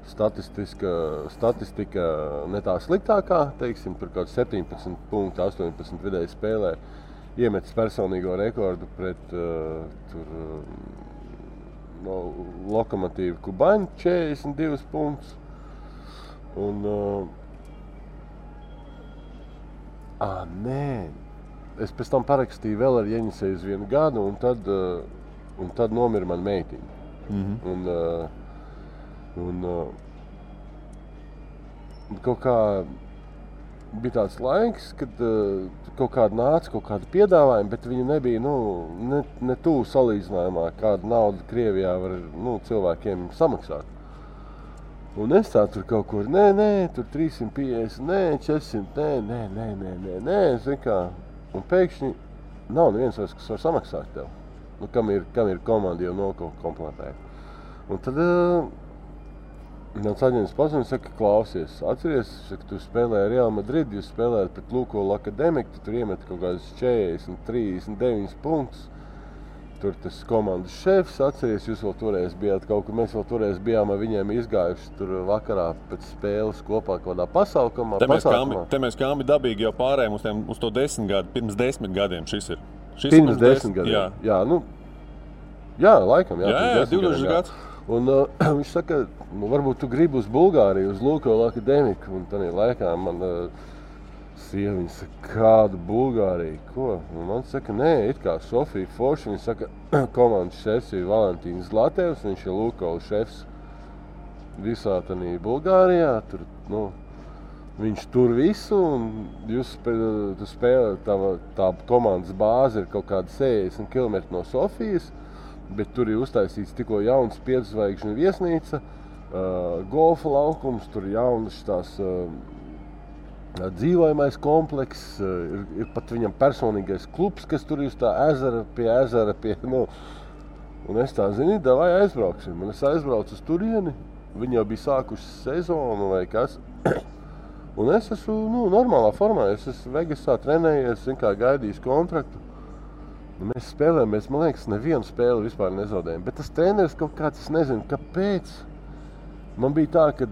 Statistika ne tā sliktākā, teiksim, tur kaut 17 punktu, 18 vidēji spēlē. Iemetis personīgo rekordu pret Lokomotīvu Kubaņu 42 punktus. Un, es pēc tam parakstīju vēl ar Jeņiseju uz 1 gadu, un tad nomira man meitiņa. Un kaut kā bija tāds laiks, kad kaut kāda nāca, kaut kāda piedāvājuma, bet viņi nebija ne tuvu salīdzinājumā, kādu naudu Krievijā var cilvēkiem samaksāt. Un es tā tur kaut kur, tur 350, 400, nē, zin kā. Un pēkšņi nav neviens vairs, kas var samaksāt tev, kam ir komanda jau nokomplektēta. Un tad mans aģents pazina, saka, klausies, atceries, ka tu spēlēji Real Madrid, jūs spēlējat pret Lukoil Akademiku, tu tur iemet kaut kādas 40, 39 punktus. Tur tas komandas šefs, atceries, jūs vēl toreiz bijāt kaut kur, mēs vēl toreiz bijām ar viņiem izgājuši tur vakarā pēc spēles kopā kaut kādā pasaukumā. Te mēs Kambi dabīgi jau pārējām uz to 10 gadu, pirms 10 gadiem šis ir. Pirms 10 gadiem? Jā, laikam, jā 20 gads. Un viņš saka, varbūt tu gribi uz Bulgāriju, uz Lukoil akadēmiku. Un tādā laikā man sieva, viņa saka, kādu Bulgāriju, ko? Un man saka, nē, it kā Sofija Forša, viņa saka, komandas šefs ir Valentīns Zlatevs, viņš ir Lukoil šefs visā tādā Bulgārijā. Tur, viņš tur visu, un jūs spēlē, tā komandas bāze ir kaut kāda 60 km no Sofijas, bet tur ir uztaisīts tikko jauns 5 zvaigžņu viesnīca, golfa laukums, tur jaunas tās dzīvojamais komplekss, ir pat viņam personīgais klubs, kas tur ir uz tā ezera, un es tā zinu, davai aizbrauksim. Un es aizbraucu uz turieni, viņi jau bija sākuši sezonu vai kas, un es esmu normālā formā, es esmu Vegasā trenējies, gaidījis kontraktu. Mēs spēlējam, man liekas, nevienu spēli vispār nezaudējam, bet tas treneris kaut kāds, es nezinu, kāpēc. Man bija tā, kad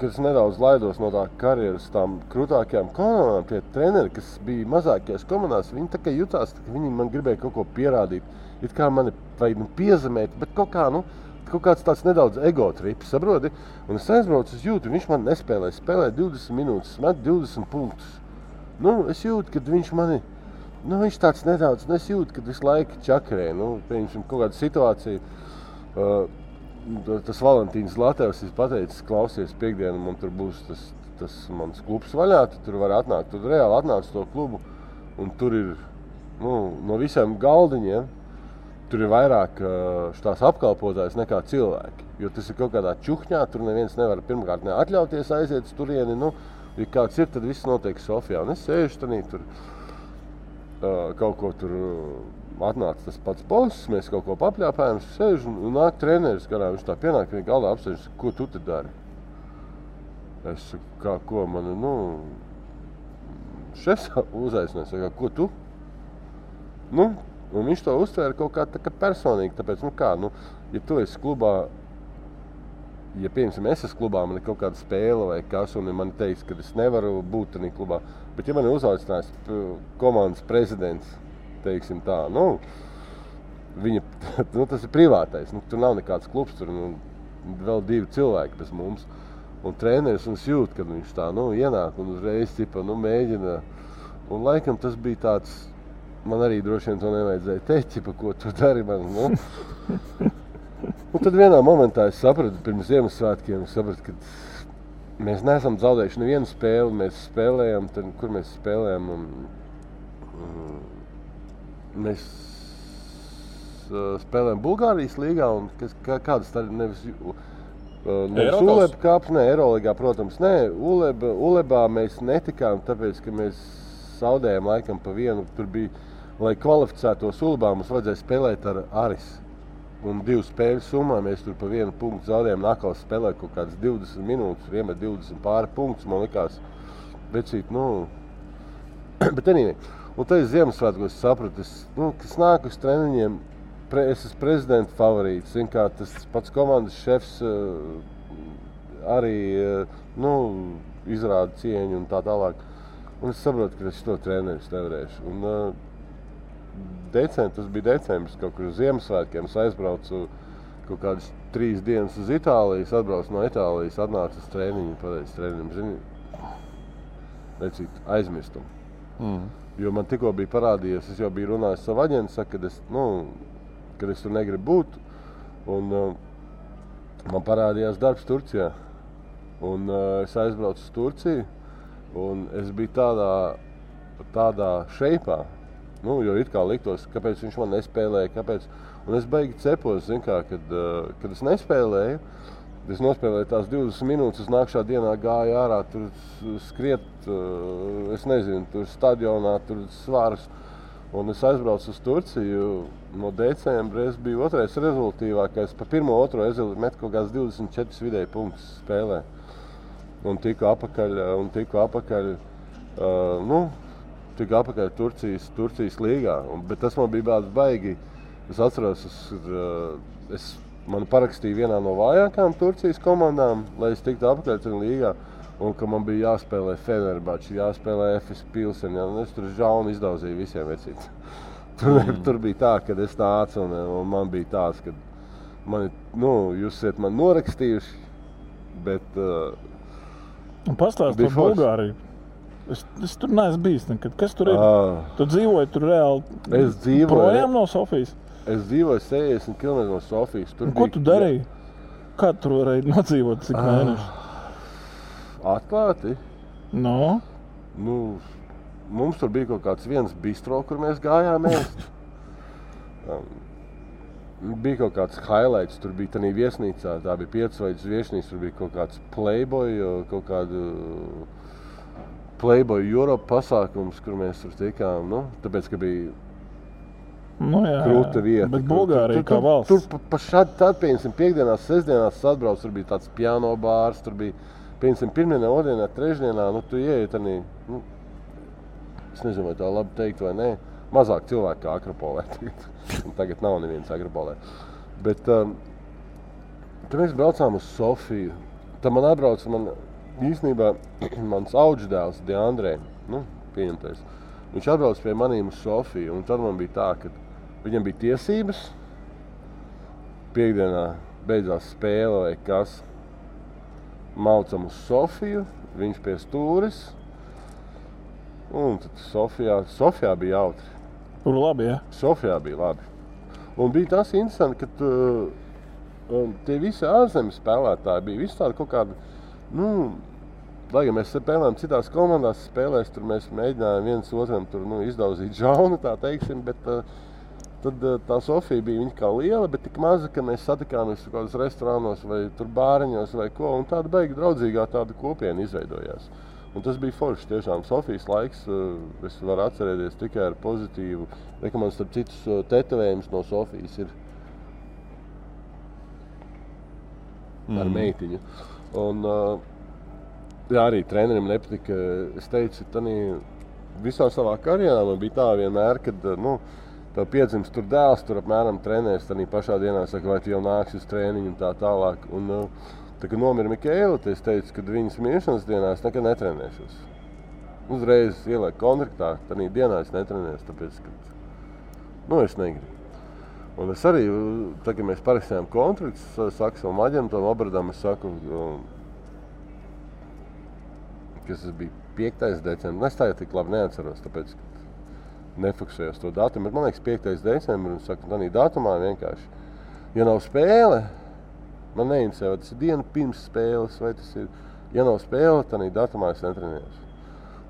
es nedaudz laidos no tā karjeras tām krūtākajām komandām, tie treneri, kas bija mazākajās komandās, viņi tā kā jutās, ka viņi man gribēja kaut ko pierādīt. It kā mani vajag piezemēt, bet kaut kāds tāds nedaudz ego trips, saproti? Un es aizbraucu uz jūtu, viņš man nespēlēja, spēlēja 20 minūtes, met 20 punktus. Es jūtu, kad viņš mani, viņš tāds nedaudz, es jūtu, kad visu laiku čakarē, pieņemsim kaut kādu situāciju. Tas Valentīns Zlatevs ir pateicis, klausies, piekdienu man tur būs tas mans klubs vaļā, tu tur var atnākt, tu reāli atnāc to klubu, un tur ir, no visiem galdiņiem, tur ir vairāk tās apkalpotājs nekā cilvēki, jo tas ir kaut kādā čuhņā, tur neviens nevar pirmkārt neatļauties aiziet uz turieni, ja kāds ir, tad viss notiek Sofijā, un es sēžu tanī tur, kaut ko tur atnāca tas pats boss, mēs kaut ko papļāpājam, sēžu un nāk treneris, garā viņš tā pienāk, viņa galdā apsēžas, ko tu te dari? Es saku, ko man, šefs uzaicināja, saka, ko tu? Un viņš to uztvēra kaut kā tā kā personīgi, tāpēc, ja tu esi klubā, ja piemēram es esmu klubā, man ir kaut kāda spēle vai kas, un man teiks, ka es nevaru būt tādā klubā, bet ja man ir uzaicinājis komandas prezidents, teiksim tā, viņa, tas ir privātais, tur nav nekāds klubs, tur vēl 2 cilvēki bez mums, un treneris un jūt, kad viņš tā, ienāk un uzreiz, mēģina, un laikam tas bija tāds, man arī droši vien to nevajadzēja teikt, ko tu dari man, Un tad vienā momentā es sapratu, pirms Ziemassvētkiem, ka mēs neesam zaudējuši nevienu spēli, mēs spēlējam, kur mēs spēlējam, mēs spēlējam Bulgārijas līgā, un kādas tā nevis Uleba kāps, Eiroligā, protams, Ulebā mēs netikām, tāpēc, ka mēs zaudējām laikam pa vienu, tur bija, lai kvalificētos Ulebā, mums vajadzēja spēlēt ar Aris. Un 2 spēļu summā mēs tur pa 1 punktu zaudējām, nākals spēlē kaut kādas 20 minūtes, iemet 20 pāri punktus, man likās, vecīt, bet anyway. Un tad es Ziemassvētkos sapratu, kas nāk uz treniņiem, es esmu prezidenta favorīts, kā tas pats komandas šefs arī, izrāda cieņu un tā tālāk. Un es saprotu, ka es to treneris nevarēšu. Un, tas bija decembris, kaut kur uz Ziemassvētkiem, es aizbraucu kaut kādas 3 dienas uz Itālijas, atbraucu no Itālijas, atnācu uz treniņu, pateicu treniņam, zini, vecīt, aizmirstu. Jo man tikko bija parādījies, es jau biju runājis savu aģentu, saka, kad es tur negribu būt, un man parādījās darbs Turcijā, un es aizbraucu uz Turciju, un es biju tādā šeipā, jo it kā liktos, kāpēc viņš man nespēlēja, kāpēc. Un es beigi cepos, kad es nespēlēju, es nospēlēju tās 20 minūtes, nākšā dienā gāju ārā, tur skriet, es nezinu, tur stadionā, tur svārs. Un es aizbraucu uz Turciju, no decembra es biju otrais rezultīvākais, pa 1-2 es metu kaut kāds 24 vidēji punktus spēlē. Un tiku apakaļ, tika apakaļ Turcijas līgā, bet tas man bija baigi. Es atceros, man parakstīja vienā no vājākām Turcijas komandām, lai es tiktu apakaļ tajā līgā, un ka man bija jāspēlē Fenerbahce, jāspēlē FS Pilsen, un es tur žaunu izdauzīju visiem vecīt. Tur bija tā, kad es nācu, un man bija tāds, ka Jūs esat man norakstījuši, bet... Pastāst par Bulgāriju. Es tur neesmu bijis nekad. Kas tur ir? Tu dzīvoji tur reāli projām no Sofijas? Es dzīvoju 60 km no Sofijas. Ko tu darīji? Kā tu varēji nodzīvot cik mēneši? Atklāti? No? Mums tur bija kaut kāds viens bistro, kur mēs gājām ēst. Bija kaut kāds highlights, tur bija tādā viesnīcā, tā bija 5-zvaigžņu viesnīca, tur bija kaut kāds Playboy Europe pasākums, kur mēs tur tikām, tāpēc, ka bija krūta vieta. Bet Bulgārija kā valsts. Tur pa šādi tad, piemēram, piekdienās, sestdienās atbrauc, tur bija tāds piano bārs, tur bija, piemēram, pirmdienā, otrdienā, trešdienā, tu ieeji tādā, es nezinu, vai tā labi teikt vai nē, mazāk cilvēku kā Akropolē tagad. Tagad nav neviens Akropolē. Bet tad mēs braucām uz Sofiju. Tad man atbrauc, īstenībā mans audždēls Deandrē, pieņemtais. Viņš atbrauc pie manīm uz Sofiju, un tad man bija tā, ka viņam bija tiesības. Piekdienā beidzās spēle vai kas. Maucam uz Sofiju, viņš pie stūris. Un tad Sofijā bija jautri. Tur labi, ja? Sofijā bija labi. Un bija tas interesanti, ka tie visi ārzemes spēlētāji bija visi tādi kaut kādi, lai gan mēs spēlējām citās komandās spēlēs, tur mēs mēģinājām viens otram tur, izdauzīt žaunu, tā teiksim, bet tad tā Sofija bija viņa kā liela, bet tik maza, ka mēs satikāmies kaut kādos restorānos vai tur bāriņos vai ko, un tāda beigi draudzīgā tāda kopiena izveidojās. Un tas bija forši, tiešām Sofijas laiks, es varu atcerēties tikai ar pozitīvu, ka man starp citus tetovējums no Sofijas ir ar meitiņu. Un arī trenerim nepatika, es teicu, visā savā karjerā man bija tā vienmēr, kad tev piedzimst tur dēls, tur apmēram trenēs, tad pašā dienā saka, vai tu jau nāksi uz trēniņu un tā tālāk. Un, tā kā nomira Mikēla, es teicu, ka viņas miršanas dienā es nekad netrenēšos. Uzreiz ielieku kontraktā, tad dienā es netrenēšu, tāpēc, ka es negribu. Un es arī, tad, kad mēs parakstījām kontraktus, saku savam aģentam, Obradam, es saku, kas tas bija 5. decembris, es tā jau tik labi neatceros, tāpēc, ka nefiksējos to datumu, bet man liekas 5. decembris, un saku, tādā datumā vienkārši, ja nav spēle, man neinteresē, vai tas ir diena pirms spēles, vai tas ir, ja nav spēle, tad datumā es netrenējos.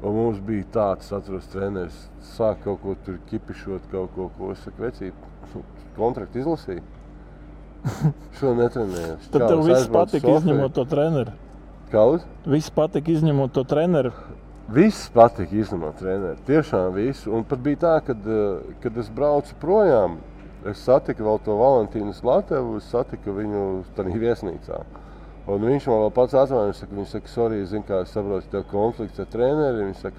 Un mums bija tāds, atceros, treneris, sāk kaut ko tur kipišot, kaut ko, es saku, vecīt, kontraktu izlasīju. Šo netrenējos. Tad tev viss patika izņemot to treneri. Kāds? Viss patika izņemot to treneri. Viss patika izņemot treneri, tiešām visu. Un pat bija tā, kad es braucu projām, es satiku vēl to Valentīnu Slatevu, es satiku viņu tādā viesnīcā. Un viņš man vēl pats atzvanīja, viņš saka, sorry, es zinu, kā es saprotu, tev konflikts ar treneri. Viņš saka,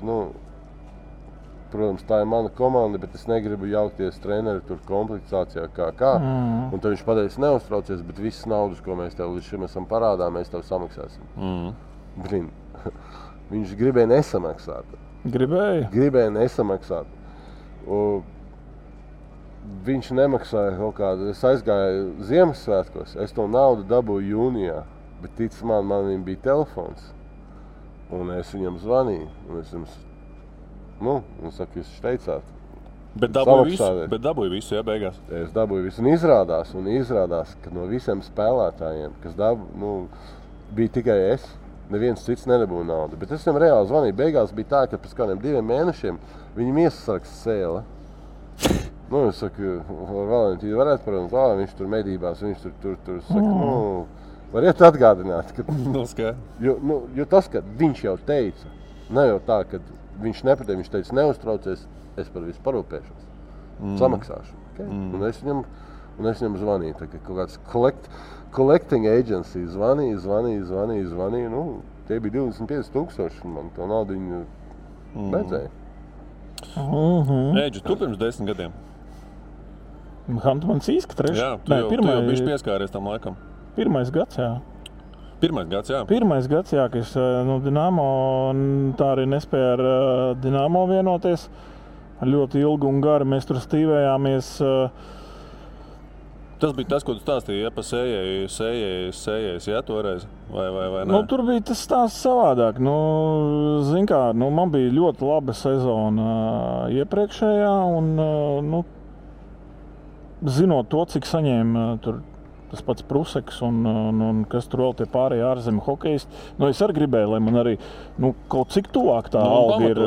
protams, tā ir mana komanda, bet es negribu jaukties treneri tur kompliktācijā kā. Un tad viņš pateica, neuztraucies, bet visas naudas, ko mēs tev līdz šim esam parādā, mēs tev samaksāsim. Blin, viņš gribēja nesamaksāt. Gribēja nesamaksāt. Viņš nemaksāja kaut kādu, es aizgāju Ziemassvētkos, es to naudu dabūju jūnijā, bet tic man viņam bija telefons, un es viņam zvanīju, un es jums, un saka, jūs teicāt. Bet dabūju visu, ja, beigās? Es dabūju visu, un izrādās, ka no visiem spēlētājiem, kas bija tikai es, neviens cits nedabūja naudu, bet es viņam reāli zvanīju, beigās bija tā, ka pēc kādiem 2 mēnešiem viņam iesargs sēle. Es saku, Valentīnu varētu parunāt, viņš tur medībās, viņš tur saka, variet atgādināt, ka... Jo tas, ka viņš jau teica, ne jau tā, ka viņš nepateica, viņš teica, neuztraucies, es par visu parūpēšos, samaksāšu. Okay? Un es viņam zvanīju, tā kā kaut kāds collecting agency zvanīju, tie bija 25,000, man to naudu viņu beidzēja. Eģi, tu pirms 10 gadiem? Hantumans īska trešā? Jā, tu jau bišķi pieskāries tam laikam. 1. gads, jā. 1. gads, jā. 1. gads, jā, ka es Dinamo, tā arī nespēja ar Dinamo vienoties. Ļoti ilgi un gari mēs tur stīvējāmies. Tas bija tas, ko tu stāstīji, ja pa sējējas, ja, toreiz, vai nē? Nu, tur bija tas stāsts savādāk. Nu, zin kā, nu, man bija ļoti laba sezona iepriekšējā, un, nu, zinot to, cik saņēma tur tas pats Pruseks un kas tur vēl tie pārējie ārzemju hokejisti, nu, es arī gribēju, lai man arī, nu, kaut cik tuvāk tā alga ir,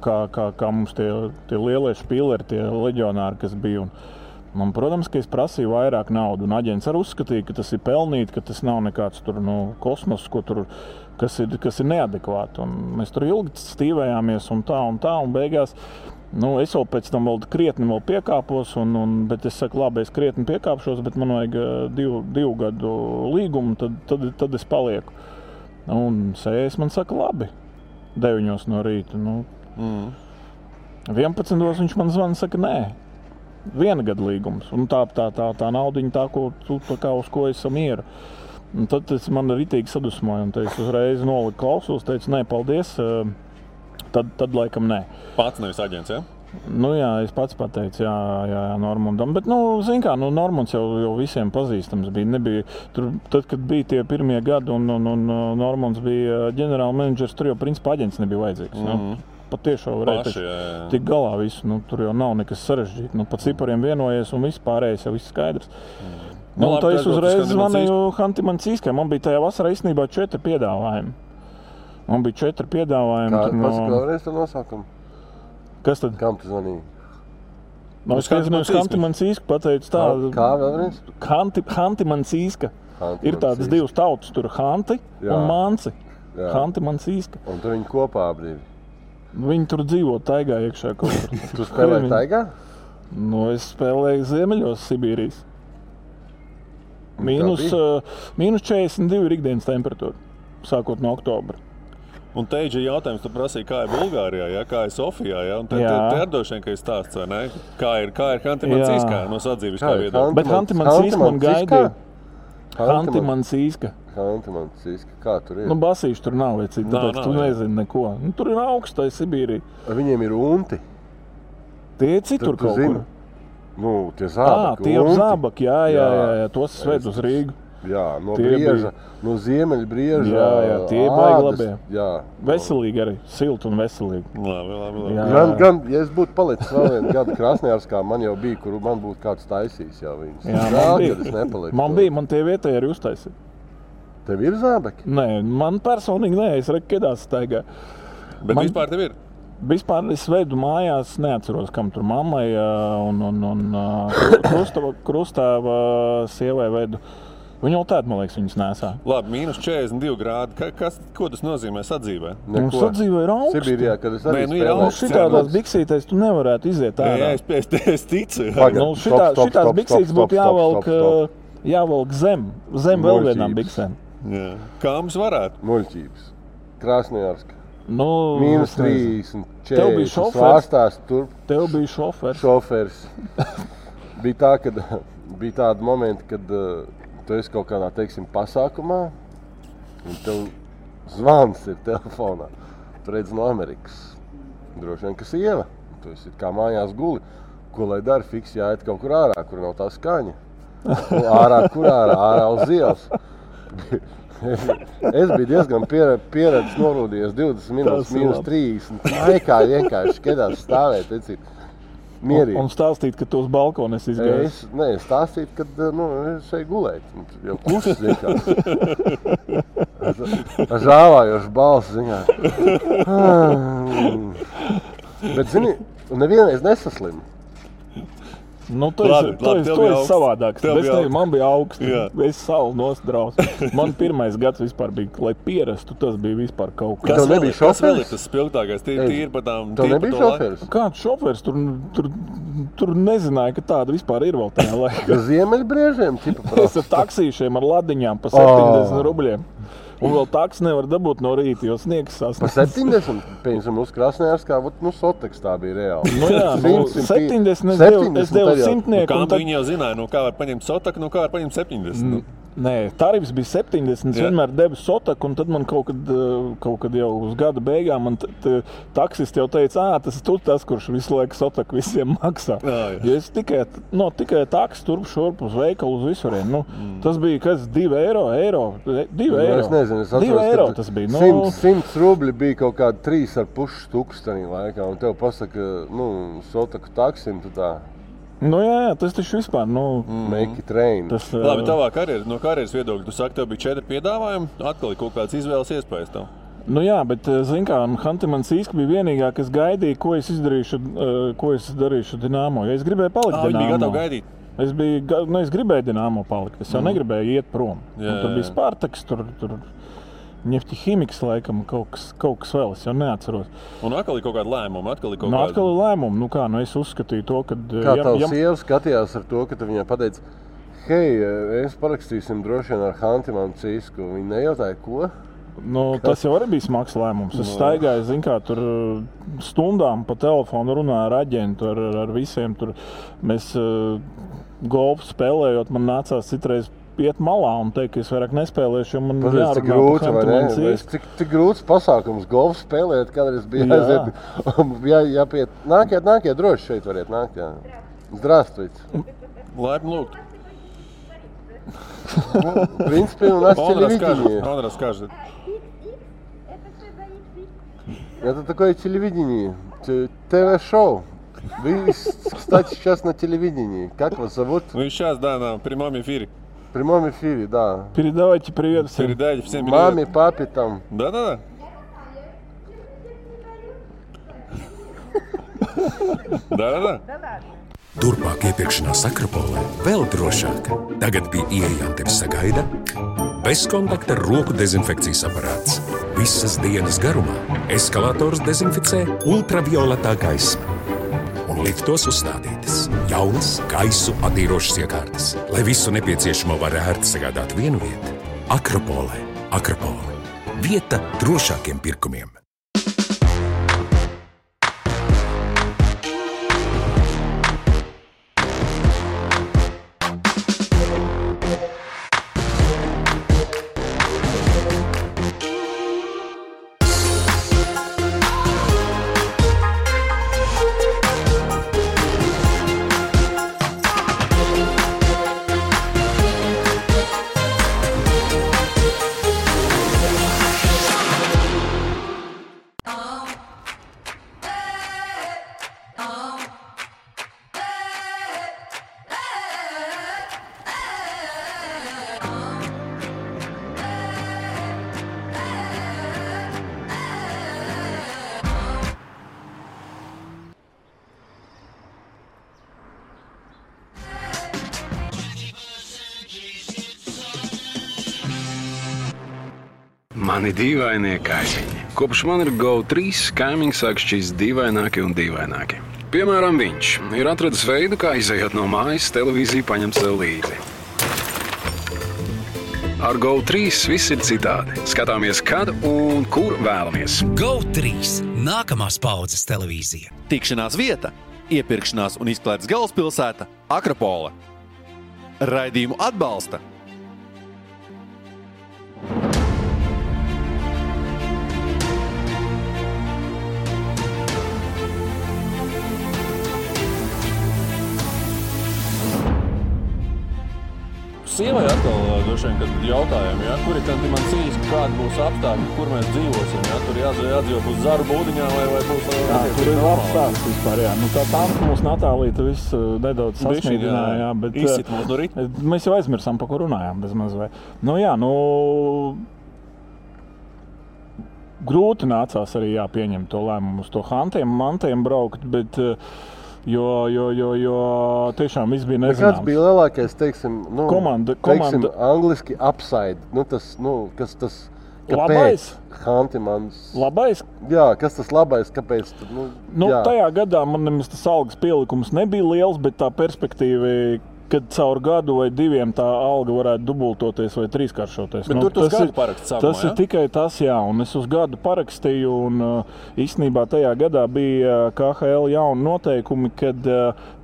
kā mums tie lielie špīleri, tie leģionāri, kas bija, un, protams, ka es prasīju vairāk naudu, un aģents arī uzskatīja, ka tas ir pelnīt, ka tas nav nekāds tur, nu, kosmos, kas ir neadekvāti, un mēs tur ilgi stīvējāmies, un beigās, nu, es vēl pēc tam vēl krietni piekāpos, bet es saku, labi, es krietni piekāpšos, bet man vajag divu gadu līgumu, tad es palieku. Un sējas man saka, labi, 9 no rīta. Nu, 11 viņš man zvana, saka, nē, 1 gada līgums. Un tā naudiņa, uz ko es mieru. Un tad tas man ritīgi sadusmoja, un es uzreiz noliku klausos, teicu, nē, paldies. Tad laikam nē. Pats nevis aģents, ja? Nu jā, es pats pateicu, jā, Normundam. Bet, nu, zin kā, nu, Normunds jau visiem pazīstams bija. Nebija, tur, tad, kad bija tie pirmie gadi un Normunds bija ģenerāla menedžers, tur jau principā aģents nebija vajadzīgs. Nu, patiešām varēja tik galā visu. Nu, tur jau nav nekas sarežģīt. Nu, pa cipariem vienojies un viss pārējais jau viss skaidrs. Nu, tā es uzreiz zvanīju Hantimancīskai. Man bija tajā vasarā īstenībā 4 piedāvājumi. Man bija 4 piedāvājumi. Kā vēlreiz to nosaukumu? Kas tad? Kam tu zvanīji? Es Hantimancīsku pateicu tā. Kā vēlreiz? Hantimancīska. Ir tādas 2 tautas, tur Hanti un Manci. Hantimancīska. Un tu viņi kopā brīvi? Viņi tur dzīvo taigā iekšā kaut kur. Tu spēlēji taigā? Nu, es spēlēju Ziemeļos Sibīrijas. Mīnus 42 ir ikdienas temperatūra, sākot no oktobra. Un teidži jautājums, tu prasīji, kā ir Bulgārijā, ja? Kā ir Sofijā, ja? Un te ir droši vien, ka ir stāsts, vai ne? Kā ir Hantimancīskā no sadzīviskā viedokļa? Bet Hantimancīska man gaidīja. Hantimancīska. Hantimancīska, kā tur ir? Nu, basīši tur nav, vai cik, tāpēc tu nezini neko. Nu, tur ir augstai Sibīrija. Viņiem ir unti. Tie citur kaut kur. Nu, tie zābaki. Tie zābaki, jā, tos sved uz Rīgu. Jā, no brieža, no Ziemeļbrieža. Jā, tie baigi labie. Jā. Veselīgi arī, silti un veselīgi. Labi. Gan, ja es būtu palicis vēl 1 gadu Krasnojarskā, man jau bija, kur man būtu kāds taisījis jau viņus. Jā, man bija, man tie vietēji arī uztaisīja. Tev ir zābeki? Nē, man personīgi nē, es kedās staigā. Bet vispār tev ir? Vispār es vedu mājās, neatceros, kam tur mammai un krustāva sievai vedu. Viņa jau tāda, man liekas, viņas nesā. Labi, mīnus 42 grādi. Ko tas nozīmē sadzīvē? Mums sadzīvē ir augsti. Sibīrijā, kad es arī spēlēju. Šitādās biksītēs tu nevarētu iziet ārā. Jā, es ticu. Šitās biksītes būtu jāvelk zem vēl vienām biksēm. Kā mums varētu? Muļķības. Krasnojarska. Mīnus 30, 40. Tev bija šofers. Svārstās tur. Tev bija šofers. Šofers. Bija tā, kad bija tādi momenti, kad tu esi kaut kādā, teiksim, pasākumā, un tev zvans ir telefonā. Tu redzi no Amerikas. Droši vien, ka sieva. Tu esi kā mājās guli. Ko lai dara? Fiks jāiet kaut kur ārā, kur nav tā skaņa. Ārā uz ielas. Es biju diezgan pieredzis norūdījies 20 minūtes, mīnus 30. Maikā vienkārši kedās stāvēt, mierīgi. Un stāstīt, ka tu uz balkonu esi izgājis? Nē, stāstīt, ka es eju gulēt. Jau klusis vienkārši. Ar žāvājošu balsi ziņā. Bet, zini, nevienreiz nesaslimu. Nu, tu esi savādāks. Man bija augsts. Es savu nostraus. Man pirmais gads vispār bija, lai pierastu, tas bija vispār kaut kas. Kas vēl ir tas spilgtākais? Tīri par tām... Tev nebija šoferis? Kāds šoferis? Tur nezināja, ka tāda vispār ir vēl tajā laikā. Ar Ziemeļbriežiem? Es ar taksīšiem, ar ladiņām pa 70 rubļiem. Un vēl taks nevar dabūt no rīta, jo sniegs sasniedz. Pa 70? Piemēram, uz Krasnojarskā, Soteks tā bija reāli. Nu jā, 70 es devu simtnieku. Kā viņi jau zināja, kā var paņemt Sotaku, kā var paņemt 70? Nē, tarifs bija 70, vienmēr devu Sotaku, un tad man kaut kad jau uz gada beigām man taksists jau teica, tas ir tas, kurš visu laiku Sotaku visiem maksā. Jo es tikai taksi turp šurp uz veikalu uz visurien. Tas bija, 2 eiro. 2 eiro. Es nezinu, es atceros, 2 eiro tas bija. 100 rubļi bija kaut kādi 3,5 tūkstoši laikā, un tev pasaka, Sotaku taksim, tu tā. Jā, tas taču vispār, Make it rain. Labi, tavā no karjeras viedokļa, tu saki, tev bija 4 piedāvājumi, atkal ir kaut kāds izvēles iespējas tev. Jā, bet, zin kā, Hanti-Mansīska bija vienīgā, kas gaidīja, ko es darīšu Dinamo, jo es gribēju palikt Dinamo. Viņi bija gatavi gaidīt? Es gribēju Dinamo palikt, es jau negribēju iet prom. Tur bija Spartaks, tur Ņefti-Himiks, laikam, kaut kas vēl, es jau neatceros. Un atkal ir kaut kāda lēmuma? Atkal ir lēmuma. Es uzskatīju to, ka... Kā tavs sieva skatījās ar to, ka tu viņai pateici, hei, es parakstīsim droši vien ar Hanti-Mansīsku. Viņa nejautāja, ko? Tas jau arī bija smags lēmums. Es staigāju, tur stundām pa telefonu runāju ar aģentu, ar visiem. Mēs golfu spēlējot, man nācās citreiz iet malā un teikt, ka es vairāk nespēlēšu, jo man jārunā par Hanti-Mansīsku. Cik grūts pasākums golfu spēlēt, kādreiz bija aiziet. Jāpiet. Nākiet, droši šeit variet nākt. Здравствуйте. Laipni lūgt. В принципе, у нас телевидение. Он расскажет. Это такое телевидение, ТВ-шоу. Вы, кстати, сейчас на телевидении. Как вас зовут? Вы сейчас, на прямом эфире. В прямом эфире, да. Передавайте привет всем. Передайте всем привет. Маме, папе там. Да. Turpmāk iepirkšanās Akropolē vēl drošāk. Tagad pie ieejām tevi sagaida bezkontakta roku dezinfekcijas aparāts. Visas dienas garumā eskalators dezinficē ultravioletā gaisma. Un liftos uzstādītas jaunas gaisu attīrošas iekārtas, lai visu nepieciešamo var ērti sagādāt vienu vietu. Akropolē. Vieta drošākiem pirkumiem. Mani dīvainie kaimiņi. Kopš man ir GO3, kaimiņi sāk šķist dīvaināki un dīvaināki. Piemēram, viņš ir atradis veidu, kā izejot no mājas, televīziju paņemt sev līdzi. Ar GO3 viss ir citādi. Skatāmies, kad un kur vēlamies. GO3 – nākamās paudzes televīzija. Tikšanās vieta, iepirkšanās un izklaides galvaspilsēta – Akropole. Raidījumu atbalsta Sievai atkal droši vien, kad jautājām, kur ir Hanti-Mansīska, kāda būs apstākļi, kur mēs dzīvosim, tur jādzīvo būs Zaru būdiņā vai būs... Tur ir apstākļi vispār, Tā tanka mūsu Natālīta viss nedaudz sasniedināja, bet... Izsit mūs no ritma. Mēs jau aizmirsām, pa ko runājām bezmaz vai. Grūti nācās arī pieņemt to lēmumu uz to Hantiem braukt, bet... Jo tiešām viss bija nezināms. Kāds bija lielākais, komanda. Angliski upside, kas tas, labais? Hanti-Mans. Labais? Jā, kas tas labais, kāpēc? Tajā gadā man nemaz tas algas pielikums nebija liels, bet tā perspektīva kad caur gadu vai 2 tā alga varētu dubultoties vai trīskāršoties. Bet tur tas gadu paraksts sākumā, Tas ir tikai tas, jā, un es uz gadu parakstīju, un īstenībā tajā gadā bija KHL jauni noteikumi, kad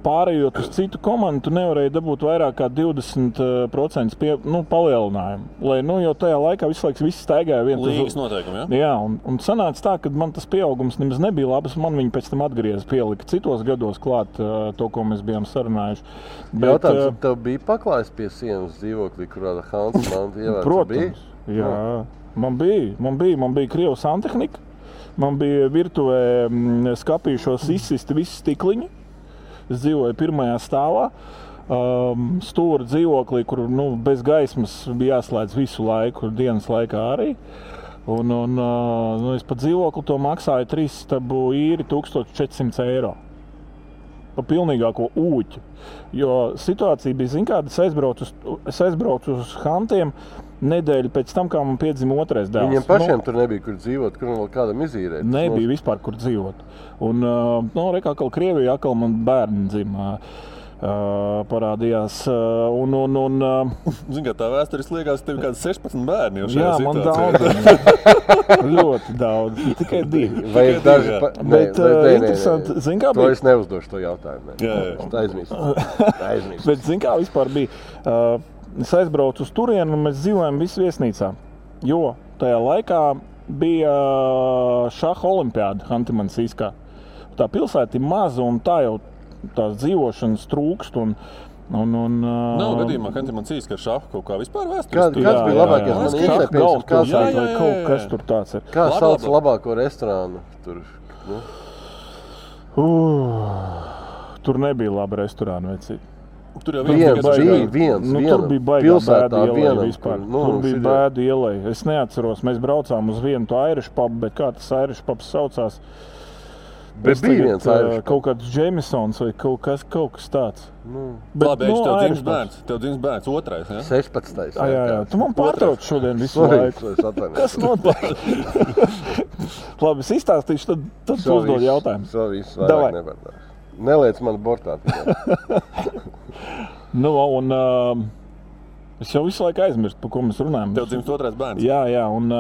pārējot uz citu komandu, tu nevarēji dabūt vairāk kā 20% palielinājumu. Lai, jo tajā laikā visu laiku viss staigāja viens līgas noteikumi, jā? Jā, un sanāca tā, ka man tas pieaugums nemaz nebija labs, man viņi pēc tam atgrieza pielika citos gados klāt to, ko mēs bijām sarunājuši. Bet, tev bija paklājis pie sienas dzīvoklī, kurā Hansa manta ievērts? Protams, jā. Man bija Krievu santehnika, man bija virtuvē skapīšos izsisti visi stikliņi. Es dzīvoju 1. stāvā, stūra dzīvoklī, kur bez gaismas bija jāslēdz visu laiku, dienas laikā arī. Un es pa dzīvokli to maksāju 3 stabu īri 1400 eiro. Pa pilnīgāko ūķi. Jo situācija bija, kāda es aizbraucu uz Hantiem nedēļu pēc tam, kā man piedzima 2. dēls. Viņiem pašiem tur nebija, kur dzīvot, kur vēl kādam izīrēt. Nebija vispār, kur dzīvot. Un, rekā, ka Krievijā atkal man bērni dzima. Parādījās. Zini, kā tā vēsturis liekas, tev kāds 16 bērni jau šajā Jā, situācijā. man daudz. Ļoti daudz. Tikai 2. Vai ir daži... Bet interesanti, zini, kā bija? To es neuzdošu to jautājumu. Jā. Es aizmirstu. Bet zini, kā vispār bija? Es aizbraucu uz turienu un mēs dzīvojam visi viesnīcā. Jo tajā laikā bija šaha olimpiāda Hanti-Mansijskā. Tā pilsēta ir maza un tā jau tās dzīvošanas trūkst. Nav gadījumā, ka Hanti-Mansijskā ar šahu kaut kā vispār vēstures. Kāds bija labākais? Man šaha galvas vai kaut kas tur tāds ir. Kā sauc labāko restorānu tur? Tur nebija laba restorāna vecī. Tur jau viens. Tur bija baigā bēdu ielai vispār. Tur bija šitie... bēdu ielai. Es neatceros, mēs braucām uz vienu to Irish pubu, bet kā tas Irish pubs saucās? Bet bija viens Irish pubs. Kaut kāds Jamesons vai kaut kas tāds. Bet, labi, tev dzims bērns 2. Ja? 16. Jā. Tu man pārtrauc šodien visu laiku. Kas notiek? Labi, es izstāstīšu, tad tu uzdod jautājumu. Šo visu vairāk nevar. Neliec man bortā. Es jau visu laiku aizmirstu, par ko mēs runājam. Tev dzims 2. bērns. Jā, un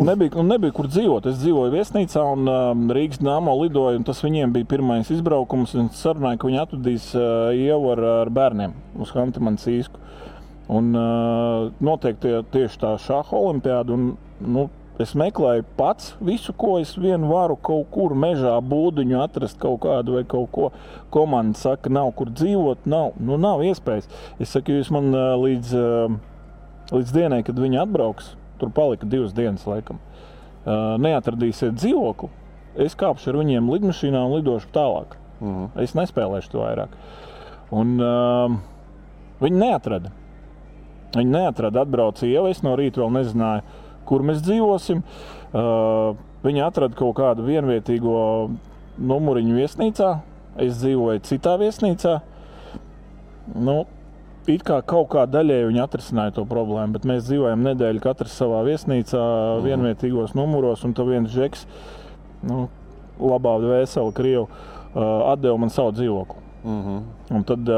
nebija kur dzīvot. Es dzīvoju viesnīcā un Rīgas Dnamo lidoju, un tas viņiem bija pirmais izbraukums. Un es sarunāju, ka viņi atvedīs Ievu ar bērniem uz Hanti-Mansijsku. Un noteikti tieši tā šaha olimpiāda. Es meklēju pats visu, ko es varu kaut kur mežā būdiņu atrast kaut kādu vai kaut ko. Komanda saka, nav kur dzīvot, nav iespējas. Es saku, jūs man līdz dienai, kad viņi atbrauks, tur palika 2 dienas laikam, neatradīsiet dzīvokli, es kāpšu ar viņiem lidmašīnā un lidošu tālāk. Es nespēlēšu to vairāk. Un viņi neatrada. Atbrauca Ieva, es no rīta vēl nezināju, kur mēs dzīvosim. Viņi atrada kaut kādu vienvietīgo numuriņu viesnīcā. Es dzīvoju citā viesnīcā. It kā kaut kā daļēji viņi atrisināja to problēmu, bet mēs dzīvojam nedēļu katrs savā viesnīcā, vienvietīgos numuros, un tad viens žeks, labā vesela Krievu, atdeva man savu dzīvokli. Un tad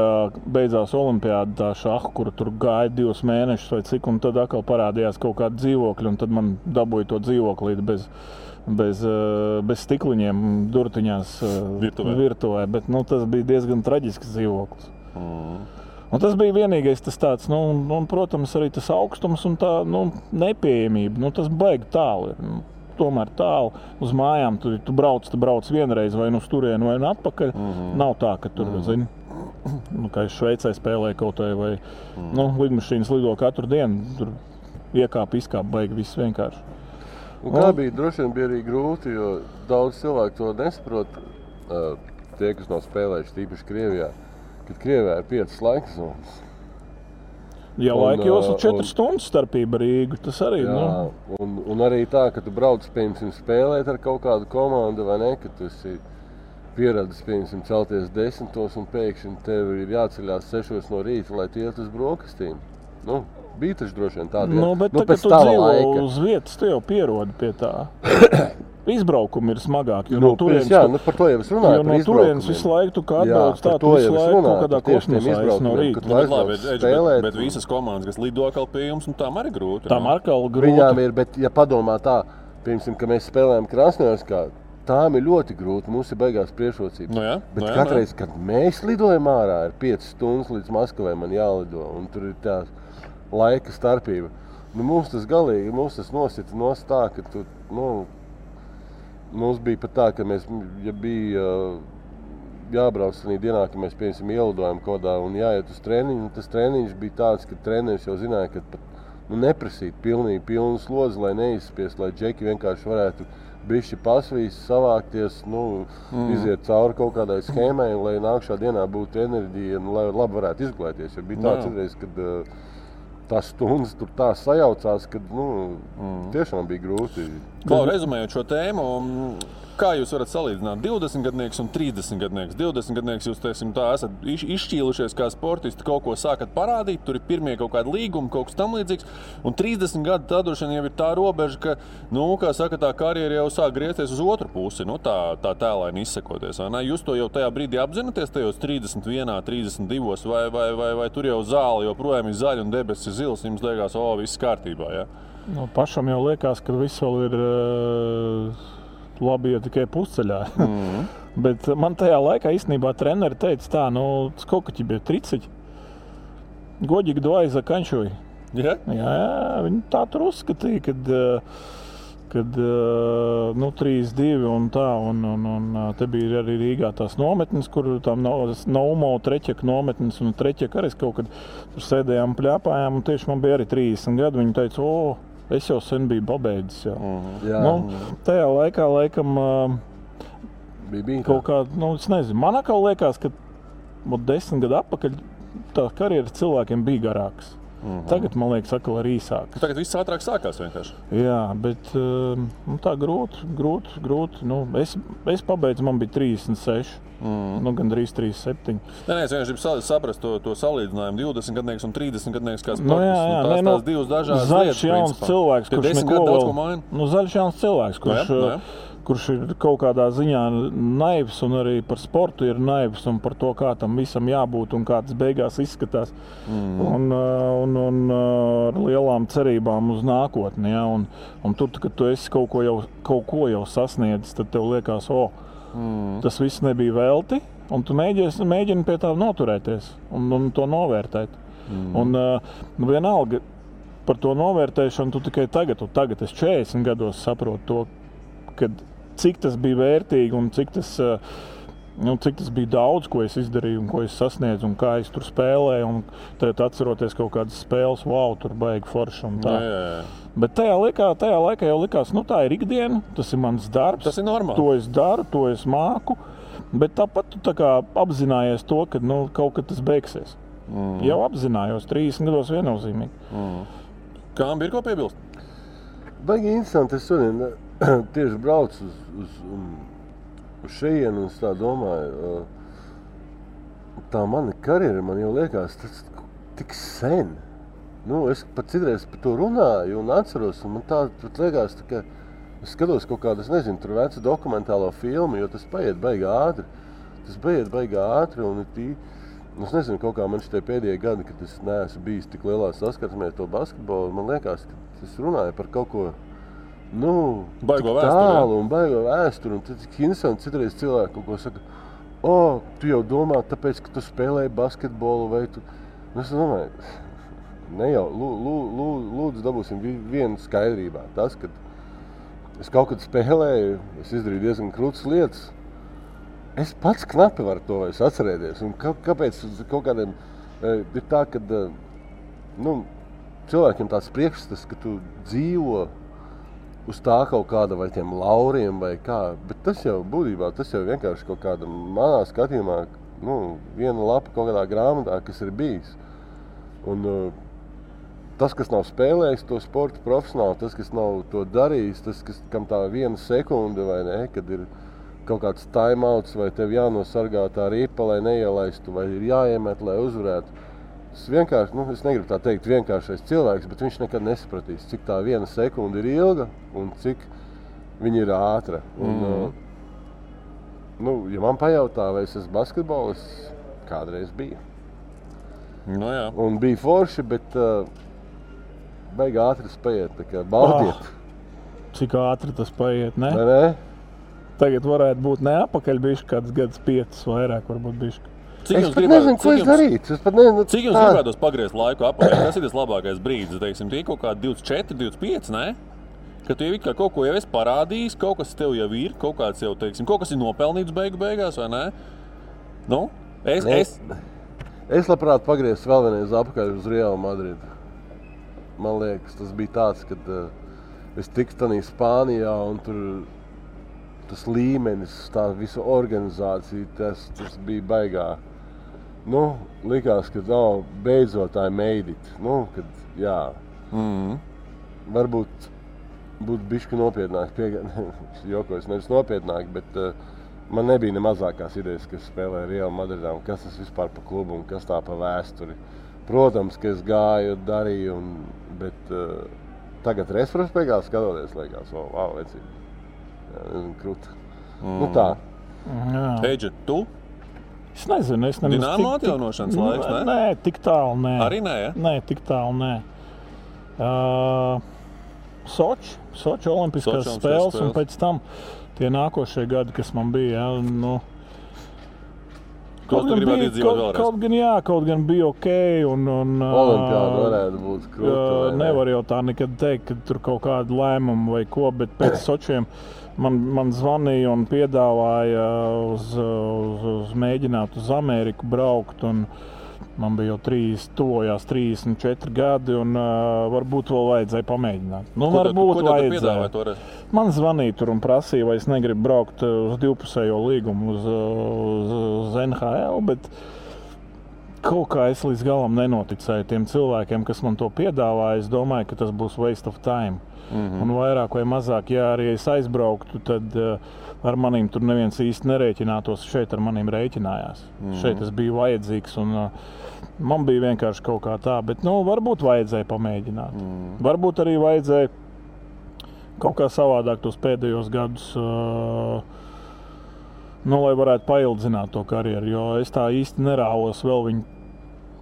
beidzās olimpiāda tā šaha, kura tur gāja 2 mēnešus vai cik, un tad atkal parādījās kaut kāda dzīvokļa, un tad man dabūja to dzīvoklīti bez stikliņiem durtiņās virtuvē. Bet tas bija diezgan traģisks dzīvoklis. Un tas bija vienīgais tas tāds, un protams, arī tas augstums un tā nepieejamība. Tas baigi tālu ir. Tomēr tālu uz mājām, tu brauc vienreiz vai uz turienu vai atpakaļ. Nav tā, ka tur, zini, kā es Šveicē spēlēju kaut vai lidmašīnas lido katru dienu, tur iekāp, izkāp, baigi viss vienkārši. Un kā bija, droši vien bija arī grūti, jo daudz cilvēku to nesaprot, tie, kas nav spēlējuši tīpaši Krievijā, kad Krievijā ir 5 laika zonas. Ja laika jūs ir 4 stundas starpība Rīgu, tas arī, Un arī tā, ka tu brauc, piemēram, spēlēt ar kaut kādu komandu, vai ne, ka tu esi pieradis, piemēram, celties 10 un pēkšņi tev ir jāceļās 6 no rīta, lai tu iet uz brokastīm. Bija taču droši vien tādi. Bet tā, kad tu dzīvo uz vietas, tu jau pierodi pie tā. izbraukumi ir smagāki. Nu, par to jau es runāju. Jo no turienes visu laiku tu kā atbrauc tā, tu visu laiku kaut kādā kosmosā no rīta. Bet visas komandas, kas lido atkal pie jums, tām arī grūti. Tām atkal grūti. Viņām ir, bet ja padomā tā, piemēram, ka mēs spēlējam Krasnojarskā, tām ir ļoti grūti, mums ir beigās priekšrocības. Bet katreiz, kad mēs lidojam ārā, ir 5 stundas līdz Maskavai man jālido, un tur ir tā laika starpība. Nu, mums tas galīgi, mums tas nosita nost tā, ka tu, mums bija pat tā, ka mēs, ja bija jābrauc tādā dienā, ka mēs, piemēram, ielidojam kodā un jāiet uz treniņu, tas treniņš bija tāds, ka treneris jau zināja, ka pat neprasīt pilnu slodzi, lai neizspiest, lai džeki vienkārši varētu bišķi pasvīst, savākties, iziet cauri kaut kādai schēmai, lai nākšā dienā būtu enerģija un lai labi varētu izglēties. Jo bija tāds reiz, kad tās stundas tur tā sajaucās, ka tiešām bija grūti. Klau, rezumējot šo tēmu, kā jūs varat salīdzināt 20-gadnieks un 30-gadnieks? 20-gadnieks jūs, esat izšķīlušies kā sportisti, kaut ko sākat parādīt, tur ir pirmie kaut kādi līgumi, kaut kas tam līdzīgs, un 30 gadi tā droši vien jau ir tā robeža, ka, kā saka, tā karjera jau sāk griezties uz otru pusi, tā tēlaini izsakoties, vai ne? Jūs to jau tajā brīdī apzināties, tajos 31, 32, vai tur jau zāle joprojām ir zaļa un debesis ir zils, jums liekas, viss kārtībā, ja? Pašam jau liekas, ka viss vēl ir labi, ja tikai pusceļā. Bet man tajā laikā īstenībā treneri teica tā, сколько тебе 30? Годик 2 заканчивай. Jā, viņi tā tur uzskatīja, kad 3-2 un tā, un te bija arī Rīgā tās nometnes, kur tam Naumo Treķeka nometnes, un Treķeka arī kaut kad tur sēdējām, pļāpājām, un tieši man bija arī 30 gadi, viņi teica, es jau sen biju pabeidzis. Tajā laikā, laikam, bija kaut kā, es nezinu, man atkal liekas, ka 10 gadu atpakaļ tā karjeras cilvēkiem bija garāks. Tagad, man liekas, atkal ir īsāks. Tagad viss ātrāk sākās vienkārši. Jā, bet tā grūti. Es pabeidzu, man bija 36. Gandrīz 37. Es vienkārši gribu saprast to salīdzinājumu 20-gadnieks un 30-gadnieks kā sportists. Tās divas dažādas lietas. Zaļš jauns cilvēks, kurš neko vēl... Zaļš jauns cilvēks, kurš ir kaut kādā ziņā naivs un arī par sportu ir naivs un par to, kā tam visam jābūt un kā tas beigās izskatās. Un ar lielām cerībām uz nākotni. Ja? Un tur, kad tu esi kaut ko jau sasniedzis, tad tev liekas, tas viss nebija velti, un tu mēģini pie tā noturēties un to novērtēt. Un vienalga par to novērtēšanu tu tikai tagad es 40 gados saprotu to, kad cik tas bija vērtīgi un cik tas bija daudz, ko es izdarīju un ko es sasniedzu un kā es tur spēlēju. Un tad atceroties kaut kādas spēles, tur baigi forši un tā. Bet tajā laikā jau likās, tā ir ikdiena, tas ir mans darbs. Tas ir normāli. To es daru, to es māku. Bet tāpat tu tā kā apzinājies to, ka kaut kad tas beigsies. Jau apzinājos, 30 gados viennozīmīgi. Kām ir ko piebilst? Baigi interesanti, es šodien tieši braucu uz šejienu un tā domāju, tā mana karjera, man jau liekas, tas tik sen. Es pat citreiz par to runāju un atceros, un man tā liekas, ka es skatos kaut kādu, tur vecu dokumentālo filmu, jo tas paiet baigi ātri. Un es nezinu, kaut kā man šitie pēdējie gadi, kad es neesmu bijis tik lielā saskarsmē to basketbolu, man liekas, ka es runāju par kaut ko baigo tālu un baigo vēsturi. Un tad interesanti citreiz cilvēki kaut ko saka, tu jau domā, tāpēc, ka tu spēlēji basketbolu vai tu... Es domāju, ne jau, lūdzu dabūsim vienu skaidrībā. Tas, kad es kaut kad spēlēju, es izdarīju diezgan krūtas lietas. Es pats knapi varu to vairs atcerēties. Un kāpēc kaut kādiem ir tā, ka cilvēkiem tāds priekšstats, ka tu dzīvo uz tā kaut kāda vai tiem lauriem vai kā. Bet tas jau būtībā, tas jau vienkārši kaut kāda manā skatījumā, viena lapa kaut kādā grāmatā, kas ir bijis. Un tas, kas nav spēlējis to sportu profesionāli, tas, kas nav to darījis, tas, kam tā viena sekunde vai ne, kad ir kaut kāds timeouts vai tev jānosargā tā ripa, lai neielaistu, vai ir jāiemet, lai uzvarētu. Es vienkārši, es negribu tā teikt vienkāršais cilvēks, bet viņš nekad nesapratīs, cik tā viena sekunde ir ilga un cik Viņa ir ātra. Un, ja man pajautā, vai es esmu basketbolists, kādreiz bija. Nu, jā. Un bija forši, bet baigi ātri spējiet, tā kā baudiet. Cik ātri tas paiet, ne? Vai ne? Tagad varētu būt ne apakaļ bišķi, kāds gads 5 vairāk varbūt bišķi. Es pat nezinu, ko es darītu. Cik jums gribētos pagriezt laiku apakaļ? Kas ir tas labākais brīdis? Teiksim, tie kaut kādi 24, 25, ne? Ka tu jau kaut ko jau esi parādījis, kaut kas tev jau ir, kaut kāds jau, teiksim, kaut kas ir nopelnīts beigās, vai ne? Nu, Es labprāt pagrieztu vēl vienreiz apakaļ uz Real Madridu. Man liekas, tas bija tāds, kad es tiku tanī Spānijā un tur tas līmenis, tā visa organizācija, tas bija baigā. Nu, likās, ka beidzot I made it. Nu, kad, jā. Varbūt būtu bišķi nopietnāk, jokojas nevis nopietnāk, bet man nebija ne mazākās idejas, kas spēlē Real Madridā un kas tas vispār pa klubu un kas tā pa vēsturi. Protams, ka es gāju, darīju, bet tagad retrospektīvā skatoties, liekas, wow, vecīgi. Krūta. Nu tā. Eidži, tu? Es nezinu, Dinamo atjaunošanas laiks, ne? Nē, tik tālu nē. Arī nē, ja? Nē, tik tālu nē. Soči olimpiskās spēles un pēc tam tie nākošie gadi, kas man bija, nu... Kaut gribētu izdzīvot vēlreiz? Kaut gan bija ok. Olimpiāda varētu būt krūta. Nevar jau tā nekad teikt, ka tur kaut kāda lēmuma vai ko, bet pēc Sočiem man zvanīja un piedāvāja uz mēģināt uz Ameriku braukt. Un man bija jau tuvojās 34 gadi un varbūt vēl vajadzēja pamēģināt. Nu, varbūt vajadzēja. Man zvanīja tur un prasīja, vai es negribu braukt uz divpusējo līgumu uz NHL, bet kaut kā es līdz galam nenoticēju tiem cilvēkiem, kas man to piedāvāja. Es domāju, ka tas būs waste of time. Un vairāk vai mazāk, ja arī es aizbrauktu, tad ar manīm tur neviens īsti nerēķinātos. Šeit ar manīm rēķinājās. Šeit es biju vajadzīgs un man bija vienkārši kaut kā tā. Bet varbūt vajadzēja pamēģināt. Varbūt arī vajadzēja kaut kā savādāk tos pēdējos gadus, lai varētu paildzināt to karjeru, jo es tā īsti nerāvos vēl viņu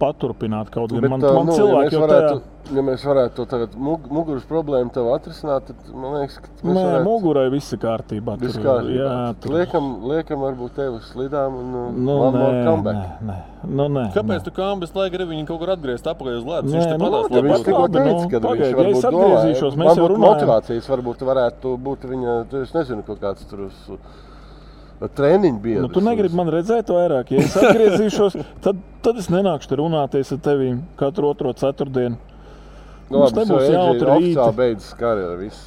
paturpināt kaut gan. Man cilvēki jau tajā... Ja mēs varētu to tagad muguras problēmu tev atrisināt, tad man liekas, ka mēs varētu... Mugurai viss ir kārtībā. Viss kārtībā. Liekam varbūt tev uz slidām un comeback. Nē. Kāpēc tu kambis, lai gribi viņu kaut kur atgriezt apakaļ uz ledus? Viņš tikko teica, ka viņš varbūt domāja. Man būtu motivācijas, varbūt varētu būt viņa, es nezinu, kaut kāds tur uz... treniņu biedrs. Tu negribi man redzēt vairāk. Ja es atgriezīšos, tad es nenākšu te runāties ar tevīm katru otro ceturtdienu. Mums nebūs jautri rīti. Oficiāli beidzas karjera viss.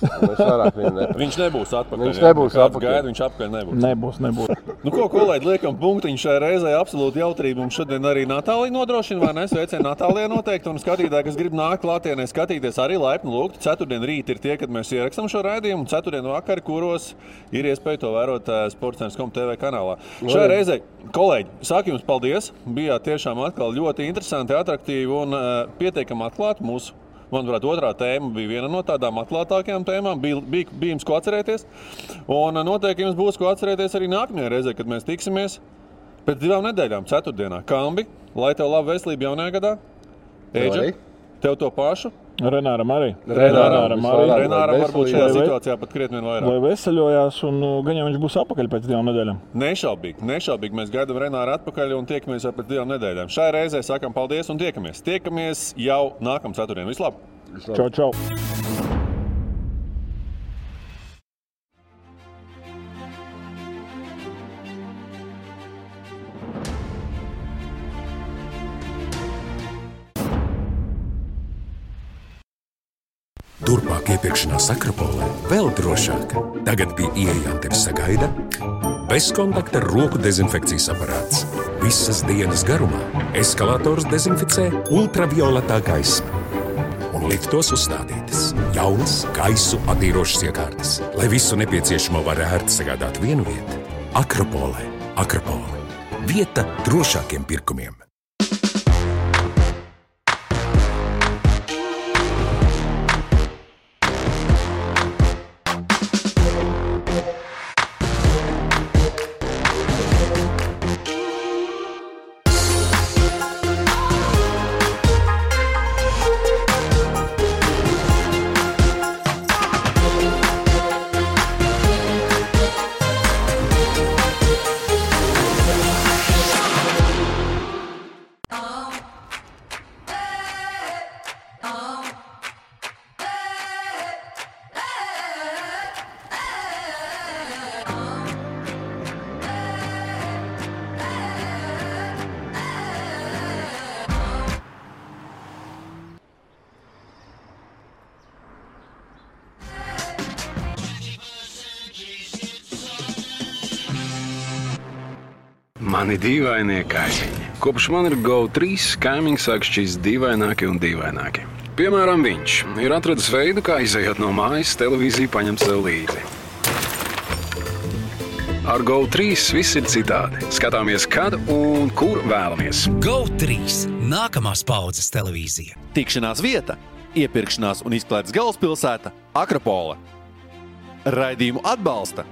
Viņš nebūs atpakaļ. Viņš nebūs atpakaļ. Gaida, viņš apakaļ nebūs. Nebūs. Nu ko, kolēģi, liekam punktiņu šai reizē. Absolūti jautrība. Mums šodien arī Natālija nodrošina, vai ne? Sveicien Natālijai noteikti. Un skatītāji, kas grib nākt klātienē skatīties, arī laipni lūgti. Ceturtdien rīt ir tie, kad mēs ierakstam šo raidījumu. Ceturtdien vakari, kuros ir iespēja to vērot Sportcentrs.com TV kanālā. Šai reizē, kolēģi, saku jums paldies. Bijāt tiešām atkal ļoti interesanti, atraktīvi un pietiekami atklāti mūsu. Manuprāt, otrā tēma bija viena no tādām atklātākajām tēmām. Bija jums ko atcerēties. Un noteikti jums būs ko atcerēties arī nākamajā reizē, kad mēs tiksimies pēc 2 nedēļām, ceturtdienā. Kambi, lai tev laba veselība jaunajā gadā. Eidža, tev to pašu. Renāram arī. Renāram varbūt šajā situācijā pat krietni vien vairāk. Lai veseļojās un gan jau viņš būs apakaļ pēc 2 nedēļām. Nešaubīgi. Mēs gaidām Renāru atpakaļ un tiekamies jau pēc 2 nedēļām. Šai reizē sakam paldies un tiekamies. Tiekamies jau nākamā ceturtdien. Vislabāk! Čau! Turpmāk iepirkšanās Akropolē vēl drošāk. Tagad pie ieejām tevi sagaida bezkontakta roku dezinfekcijas aparāts. Visas dienas garumā eskalators dezinficē ultravioletā gaisma. Un liftos uzstādītas jaunas gaisu attīrošas iekārtas, lai visu nepieciešamo var ērti sagādāt vienu vietu. Akropolē. Akropole. Vieta drošākiem pirkumiem. Mani dīvainie kaimiņi. Kopš man ir GO3, kaimiņi sāk šķist dīvaināki un dīvaināki. Piemēram, viņš ir atradis veidu, kā izejot no mājas, televīziju paņemt sev līdzi. Ar GO3 viss ir citādi. Skatāmies, kad un kur vēlamies. GO3 – nākamās paudzes televīzija. Tikšanās vieta, iepirkšanās un izklaides galvaspilsēta Akropole. Raidījumu atbalsta